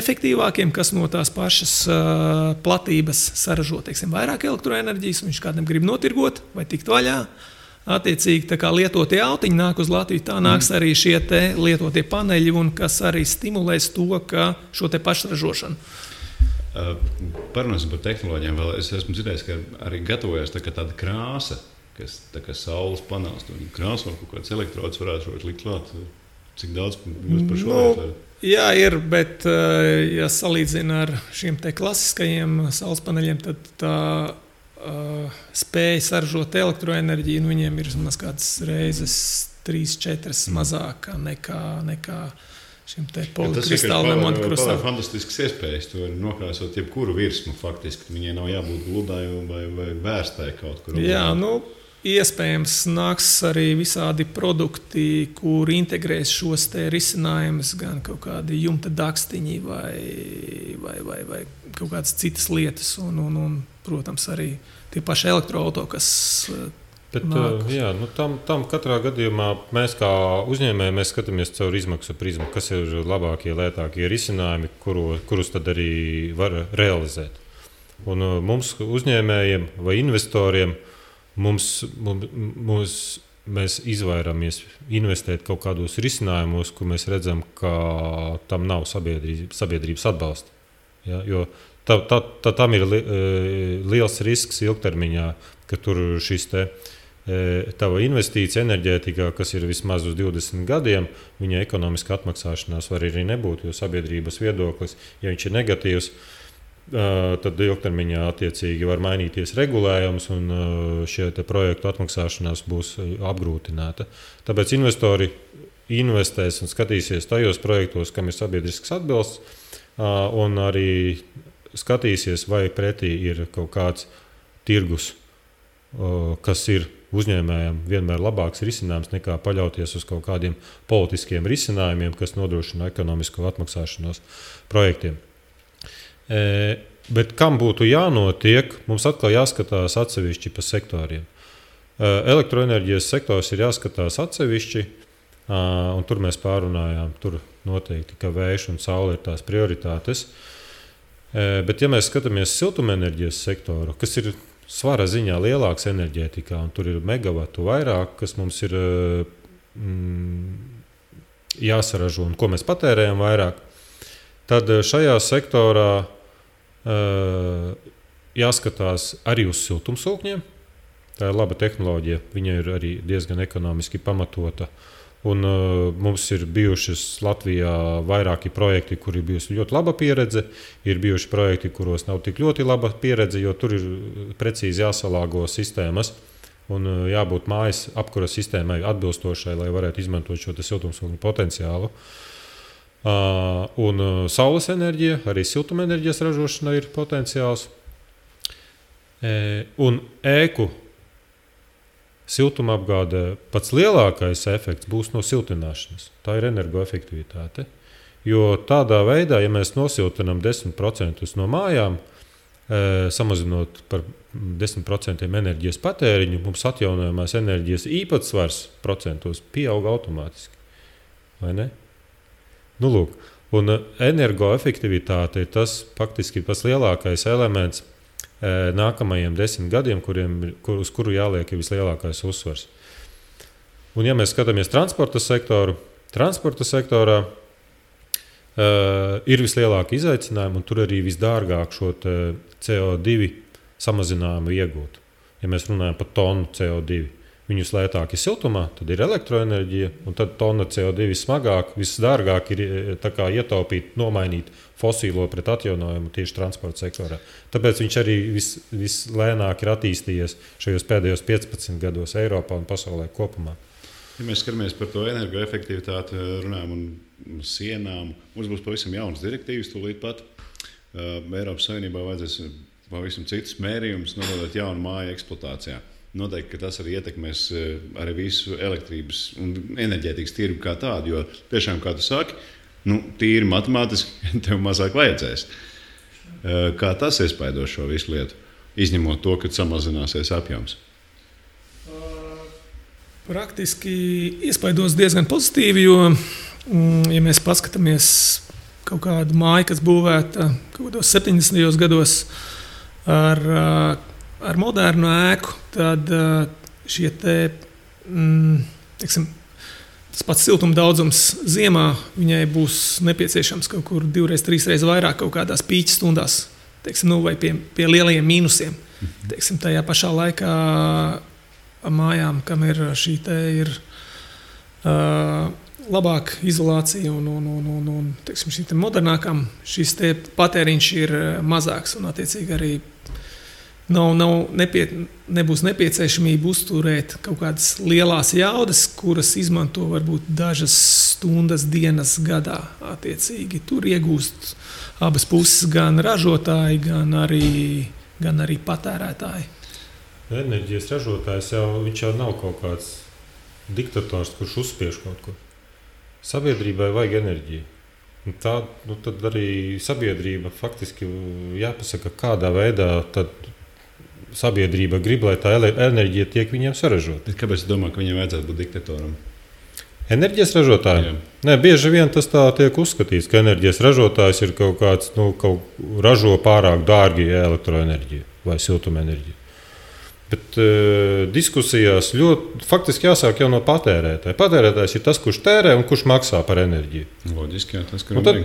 efektīvākiem, kas no tās pašas platības saražo, teiksim, vairāk elektroenerģijas, viņš kādam grib notirgot vai tikt vaļā. Attiecīgi, tā kā lietotie autiņi nāk uz Latviju, tā nāks arī šie lietotie paneļi, un kas arī stimulēs to, ka šo pašražošanu. Parunāsim par tehnoloģijām vēl. Es esmu dzirdējis, ka arī gatavojas tāda krāsa, kas tā kā saules panelis. Krāsa vai kaut kāds elektrodus varētu likt klāt. Cik daudz jūs par šo varat? Jā, ir, bet ja salīdzina ar šiem klasiskajiem saules paneļiem, tad tā spēja saražot elektroenerģiju, viņiem ir vismaz kādas reizes 3-4 mazāka nekā šim polikristāliem monokristāliem. Tas ir fantastisks iespējas. Tu vari nokrāsot jebkuru virsmu faktiski. Viņai nav jābūt gludai vai vērstai kaut kur. Jā, iespējams nāks arī visādi produkti, kur integrēs šos risinājumus, gan kaut kādi jumta dakstiņi vai kaut kādas citas lietas. Un protams, arī tie paši elektroauto, kas tam katrā gadījumā mēs kā uzņēmēji mēs skatāmies caur izmaksu prizmu, kas ir labākie, lētākie risinājumi, kurus tad arī var realizēt. Un mums uzņēmējiem vai investoriem mēs izvairamies investēt kaut kādos risinājumos, kur mēs redzam, ka tam nav sabiedrības atbalsta. Ja, jo tam ir liels risks ilgtermiņā, ka tur šis tava investīcija enerģētikā, kas ir vismaz uz 20 gadiem, viņa ekonomiska atmaksāšanās var arī nebūt, jo sabiedrības viedoklis, ja viņš ir negatīvs, tad ilgtermiņā attiecīgi var mainīties regulējums un šie projektu atmaksāšanās būs apgrūtināta. Tāpēc investori investēs un skatīsies tajos projektos, kam ir sabiedrisks atbalsts, un arī skatīsies, vai pretī ir kaut kāds tirgus, kas ir uzņēmējiem vienmēr labāks risinājums nekā paļauties uz kaut kādiem politiskiem risinājumiem, kas nodrošina ekonomisko atmaksāšanos projektiem. Bet kam būtu jānotiek, mums atkal jāskatās atsevišķi pa sektoriem. Elektroenerģijas sektors ir jāskatās atsevišķi, Un tur mēs pārunājām, tur noteikti, ka vējš un saule ir tās prioritātes. Bet, ja mēs skatāmies siltumenerģijas sektoru, kas ir svara ziņā lielāks enerģētikā, un tur ir megavatu vairāk, kas mums ir jāsaražo un ko mēs patērējam vairāk, tad šajā sektorā jāskatās arī uz siltumsūkņiem. Tā ir laba tehnoloģija, viņa ir arī diezgan ekonomiski pamatota. Un, mums ir bijušas Latvijā vairāki projekti, kur ir bijusi ļoti laba pieredze. Ir bijuši projekti, kuros nav tik ļoti laba pieredze, jo tur ir precīzi jāsalāgo sistēmas un jābūt mājas apkuras sistēmai atbilstošai, lai varētu izmantot šo siltumsūkņu potenciālu. Un saules enerģija, arī siltumenerģijas ražošana ir potenciāls. Un ēku siltumapgādē pats lielākais efekts būs no siltināšanas. Tā ir energoefektivitāte. Jo tādā veidā, ja mēs nosiltinām 10% no mājām, samazinot par 10% enerģijas patēriņu, mums atjaunojamās enerģijas īpatsvars procentos pieaug automātiski. Vai ne? Nu, lūk. Un energoefektivitāte ir tas faktiski tas lielākais elements nākamajiem 10 gadiem, uz kuru jāliek vislielākais uzsvars. Un, ja mēs skatāmies transporta sektorā ir vislielākie izaicinājumi, un tur arī visdārgāk šo CO2 samazinājumu iegūt. Ja mēs runājam par tonu CO2, viņus lētāk ir siltumā, tad ir elektroenerģija, un tad tonna CO2 smagāk, visdārgāk ir ietaupīt, nomainīt fosīlo pret atjaunojumu tieši transporta sektorā. Tāpēc viņš arī vislēnāk ir attīstījies šajos pēdējos 15 gados Eiropā un pasaulē kopumā. Ja mēs skatāmies par to energoefektivitāti, runājam un sienām, mums būs pavisam jaunas direktīvas tūlīt pat. Eiropas Savienībā vajadzēs pavisam citus mērījumus nodot jaunu māju eksploatācijā. Noteikti, ka tas arī ietekmēs arī visu elektrības un enerģētikas tirgu kā tādu, jo tiešām, kā tu saki, tīri matemātiski tev mazāk vajadzēs. Kā tas iespaido šo visu lietu, izņemot to, ka samazināsies apjoms? Praktiski iespaidos diezgan pozitīvi, jo, ja mēs paskatāmies kaut kādu māju, kas būvēta kaut kādos 70. gados ar modernu ēku, tad šie tas pats siltuma daudzums ziemā viņai būs nepieciešams kaut kur 2-3 reizes vairāk kaut kādās pīķa stundās, vai pie lielajiem mīnusiem. Tajā pašā laikā mājām, kam ir šī labāka izolācija un šī modernākām, šis patēriņš ir mazāks un attiecīgi arī nebūs nepieciešamība uzturēt kaut kādas lielās jaudas, kuras izmanto varbūt dažas stundas dienas gadā. Attiecīgi tur iegūst abas puses, gan ražotāji, gan arī patērētāji. Enerģijas ražotājs viņš jau nav kaut kāds diktators, kurš uzspiež kaut ko. Sabiedrībai vajag enerģiju. Tad arī sabiedrība faktiski jāpasaka, kādā veidā tad sabiedrība grib, lai tā enerģija tiek viņiem saražota. Kāpēc tu domā, ka viņiem vajadzētu būt diktatoram? Enerģijas ražotājiem? Nē, bieži vien tas tā tiek uzskatīts, ka enerģijas ražotājs ir kaut kāds, ražo pārāk dārgi elektroenerģiju vai siltumenerģiju. Bet diskusijās faktiski jāsāk jau no patērētāja. Patērētājs ir tas, kurš tērē un kurš maksā par enerģiju. Loģiski, jā, tas, tad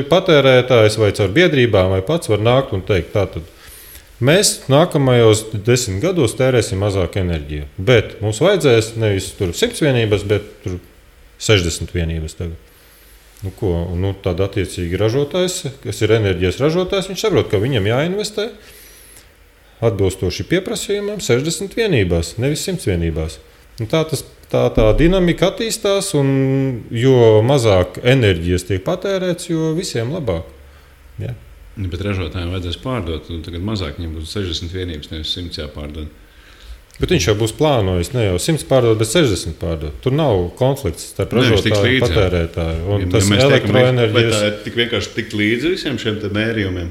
patērētājs vai caur biedrībām vai pats var nākt un teikt, tātad mēs nākamajos 10 gados tērēsim mazāk enerģiju, bet mums vajadzēs nevis 100 vienības, bet 60 vienības tagad. Tad attiecīgi ražotājs, kas ir enerģijas ražotājs, viņš saprot, ka viņam jāinvestē atbilstoši pieprasījumam 60 vienībās, nevis 100 vienībās. Tā dinamika attīstās, un jo mazāk enerģijas tiek patērēts, jo visiem labāk. Ja? Bet ražotājiem vajadzēs pārdot, un tagad mazāk viņiem būs 60 vienības, nevis 100 jāpārdod. Bet viņš jau būs plānojis ne jau 100 pārdot, bet 60 pārdot. Tur nav konflikts starp ražotāju un patērētāju. Un tas elektroenerģijas... Vai tā ir tik vienkārši tikt līdzi visiem šiem mērījumiem?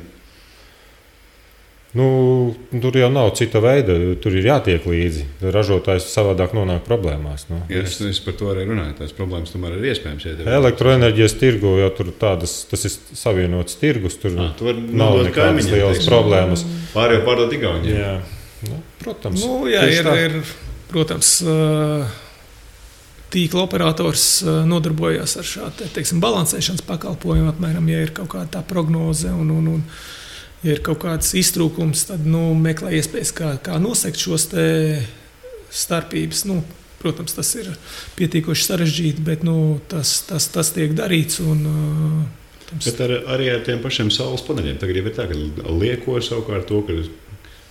Tur jau nav cita veida, tur ir jātiek līdzi. Ražotājs savādāk nonāk problēmās. Es par to arī runāju. Tās problēmas tomēr ir iespējams. Elektroenerģijas tirgu jau tur tas ir savienots tirgus. Tur nav nekādas lielas problēmas. Pārējo pārdot Igauniem. Jā, protams. Protams, tīkla operators nodarbojas ar šādu balansēšanas pakalpojumu. Apmēram, ja ir kaut kāda tā prognoze un ja ir kaut kāds iztrūkums, tad meklē iespējas, kā nosegt šos starpības. Protams, tas ir pietiekoši sarežģīti, bet tas tiek darīts. Bet arī ar tiem pašiem saules paneļiem. Tagad jau ir tā, ka lieko savukārt to, ka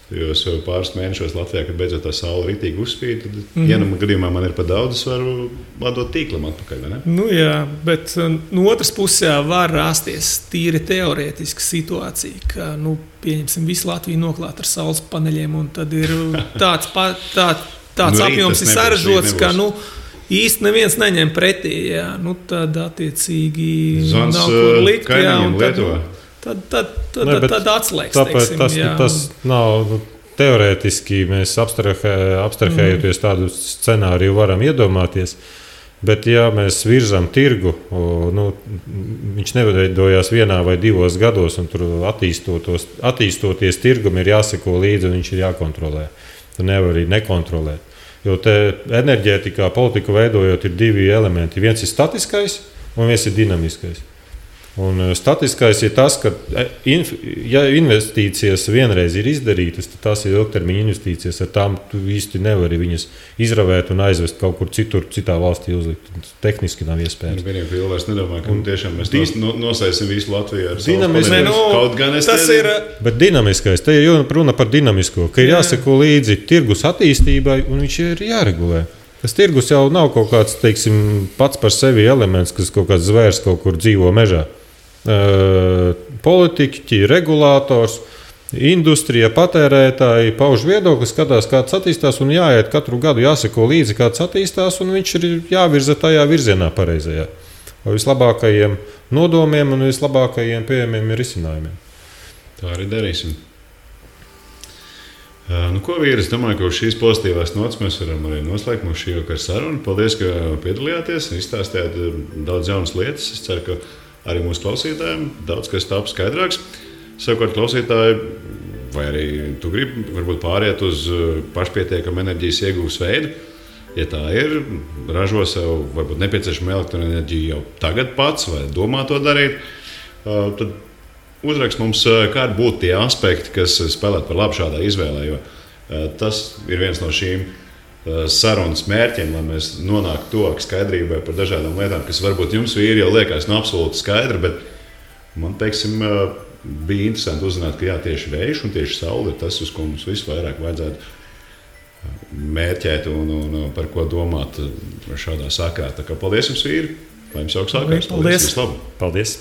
jau pāris mēnešos Latvijā, kad beidzot tā saule ritīgi uzspīd, tad vienam gadījumā man ir par daudz, es varu atdot tīklam atpakaļ, vai ne? Jā, bet no otras puses var rasties tīri teorētiska situācija, ka, pieņemsim, visu Latviju noklāt ar saules paneļiem, un tad ir tāds apjoms ir sarežģots, ka, īsti neviens neņem pretī, jā. Tad attiecīgi Zvans nav kur likt, kaimiņiem Lietuvā. Tad atslēgs. Tas nav teorētiski. Mēs abstrahējoties tādu scenāriju varam iedomāties. Bet, ja mēs virzām tirgu, viņš neveidojās 1 vai 2 gados, un tur attīstoties tirgum ir jāseko līdzi un viņš ir jākontrolē. Tu nevar arī nekontrolēt. Jo te enerģētikā politiku veidojot ir 2 elementi. Viens ir statiskais un viens ir dinamiskais. Un statiskais ir tas, ka ja investīcijas vienreiz ir izdarītas, tad tās ir ilgtermiņa investīcijas. Ar tām tu īsti nevari viņas izravēt un aizvest kaut kur citur, citā valstī uzlikt. Tehniski nav iespējams. Vienīgi vēl vairs nedomāju, ka tiešām mēs nosēsim visu Latviju ar dinamisku. Kaut gan es tas ir. Bet dinamiskais, te ir runa par dinamisko, ka ir jāseko līdzi tirgus attīstībai un viņš ir jāregulē. Tas tirgus jau nav kaut kāds, pats par sevi elements, kas kaut kāds zvērs kaut kur dzīvo mežā. Politiķi, regulators, industrija, patērētāji pauž viedokli, skatās, kāds attīstās, un jāiet katru gadu, jāseko līdzi, kāds attīstās, un viņš ir jāvirza tajā virzienā pareizajā. Ar vislabākajiem nodomiem un vislabākajiem pieejamiem risinājumiem. Tā arī darīsim. Ko vīri, es domāju, ka uz šīs pozitīvās nots mēs varam arī noslēgt mūsu šī vakara sarunu. Paldies, ka piedalījāties, izstāstījāt daudz jaunas lietas. Es ceru, ka arī mūsu klausītājiem daudz kas tāp skaidrāks. Savukārt klausītāji, vai arī tu gribi varbūt pāriet uz pašpietiekamu enerģijas iegūves veidu. Ja tā ir, ražo sev varbūt nepieciešamu elektroenerģiju jau tagad pats vai domā to darīt, tad uzrakst mums, kādi būtu tie aspekti, kas spēlētu par labu šādā izvēlē, jo tas ir viens no šīm sarunas mērķiem, lai mēs nonāktu tuvāk skaidrībai par dažādām lietām, kas varbūt jums vīri jau liekas absolūti skaidri, bet man, bija interesanti uzzināt, ka tieši vējš un tieši saule ir tas, uz ko mums visvairāk vajadzētu mērķēt un par ko domāt šādā sakrā. Tā kā paldies jums, vīri! Lai jums jauks sākās! Paldies! Paldies!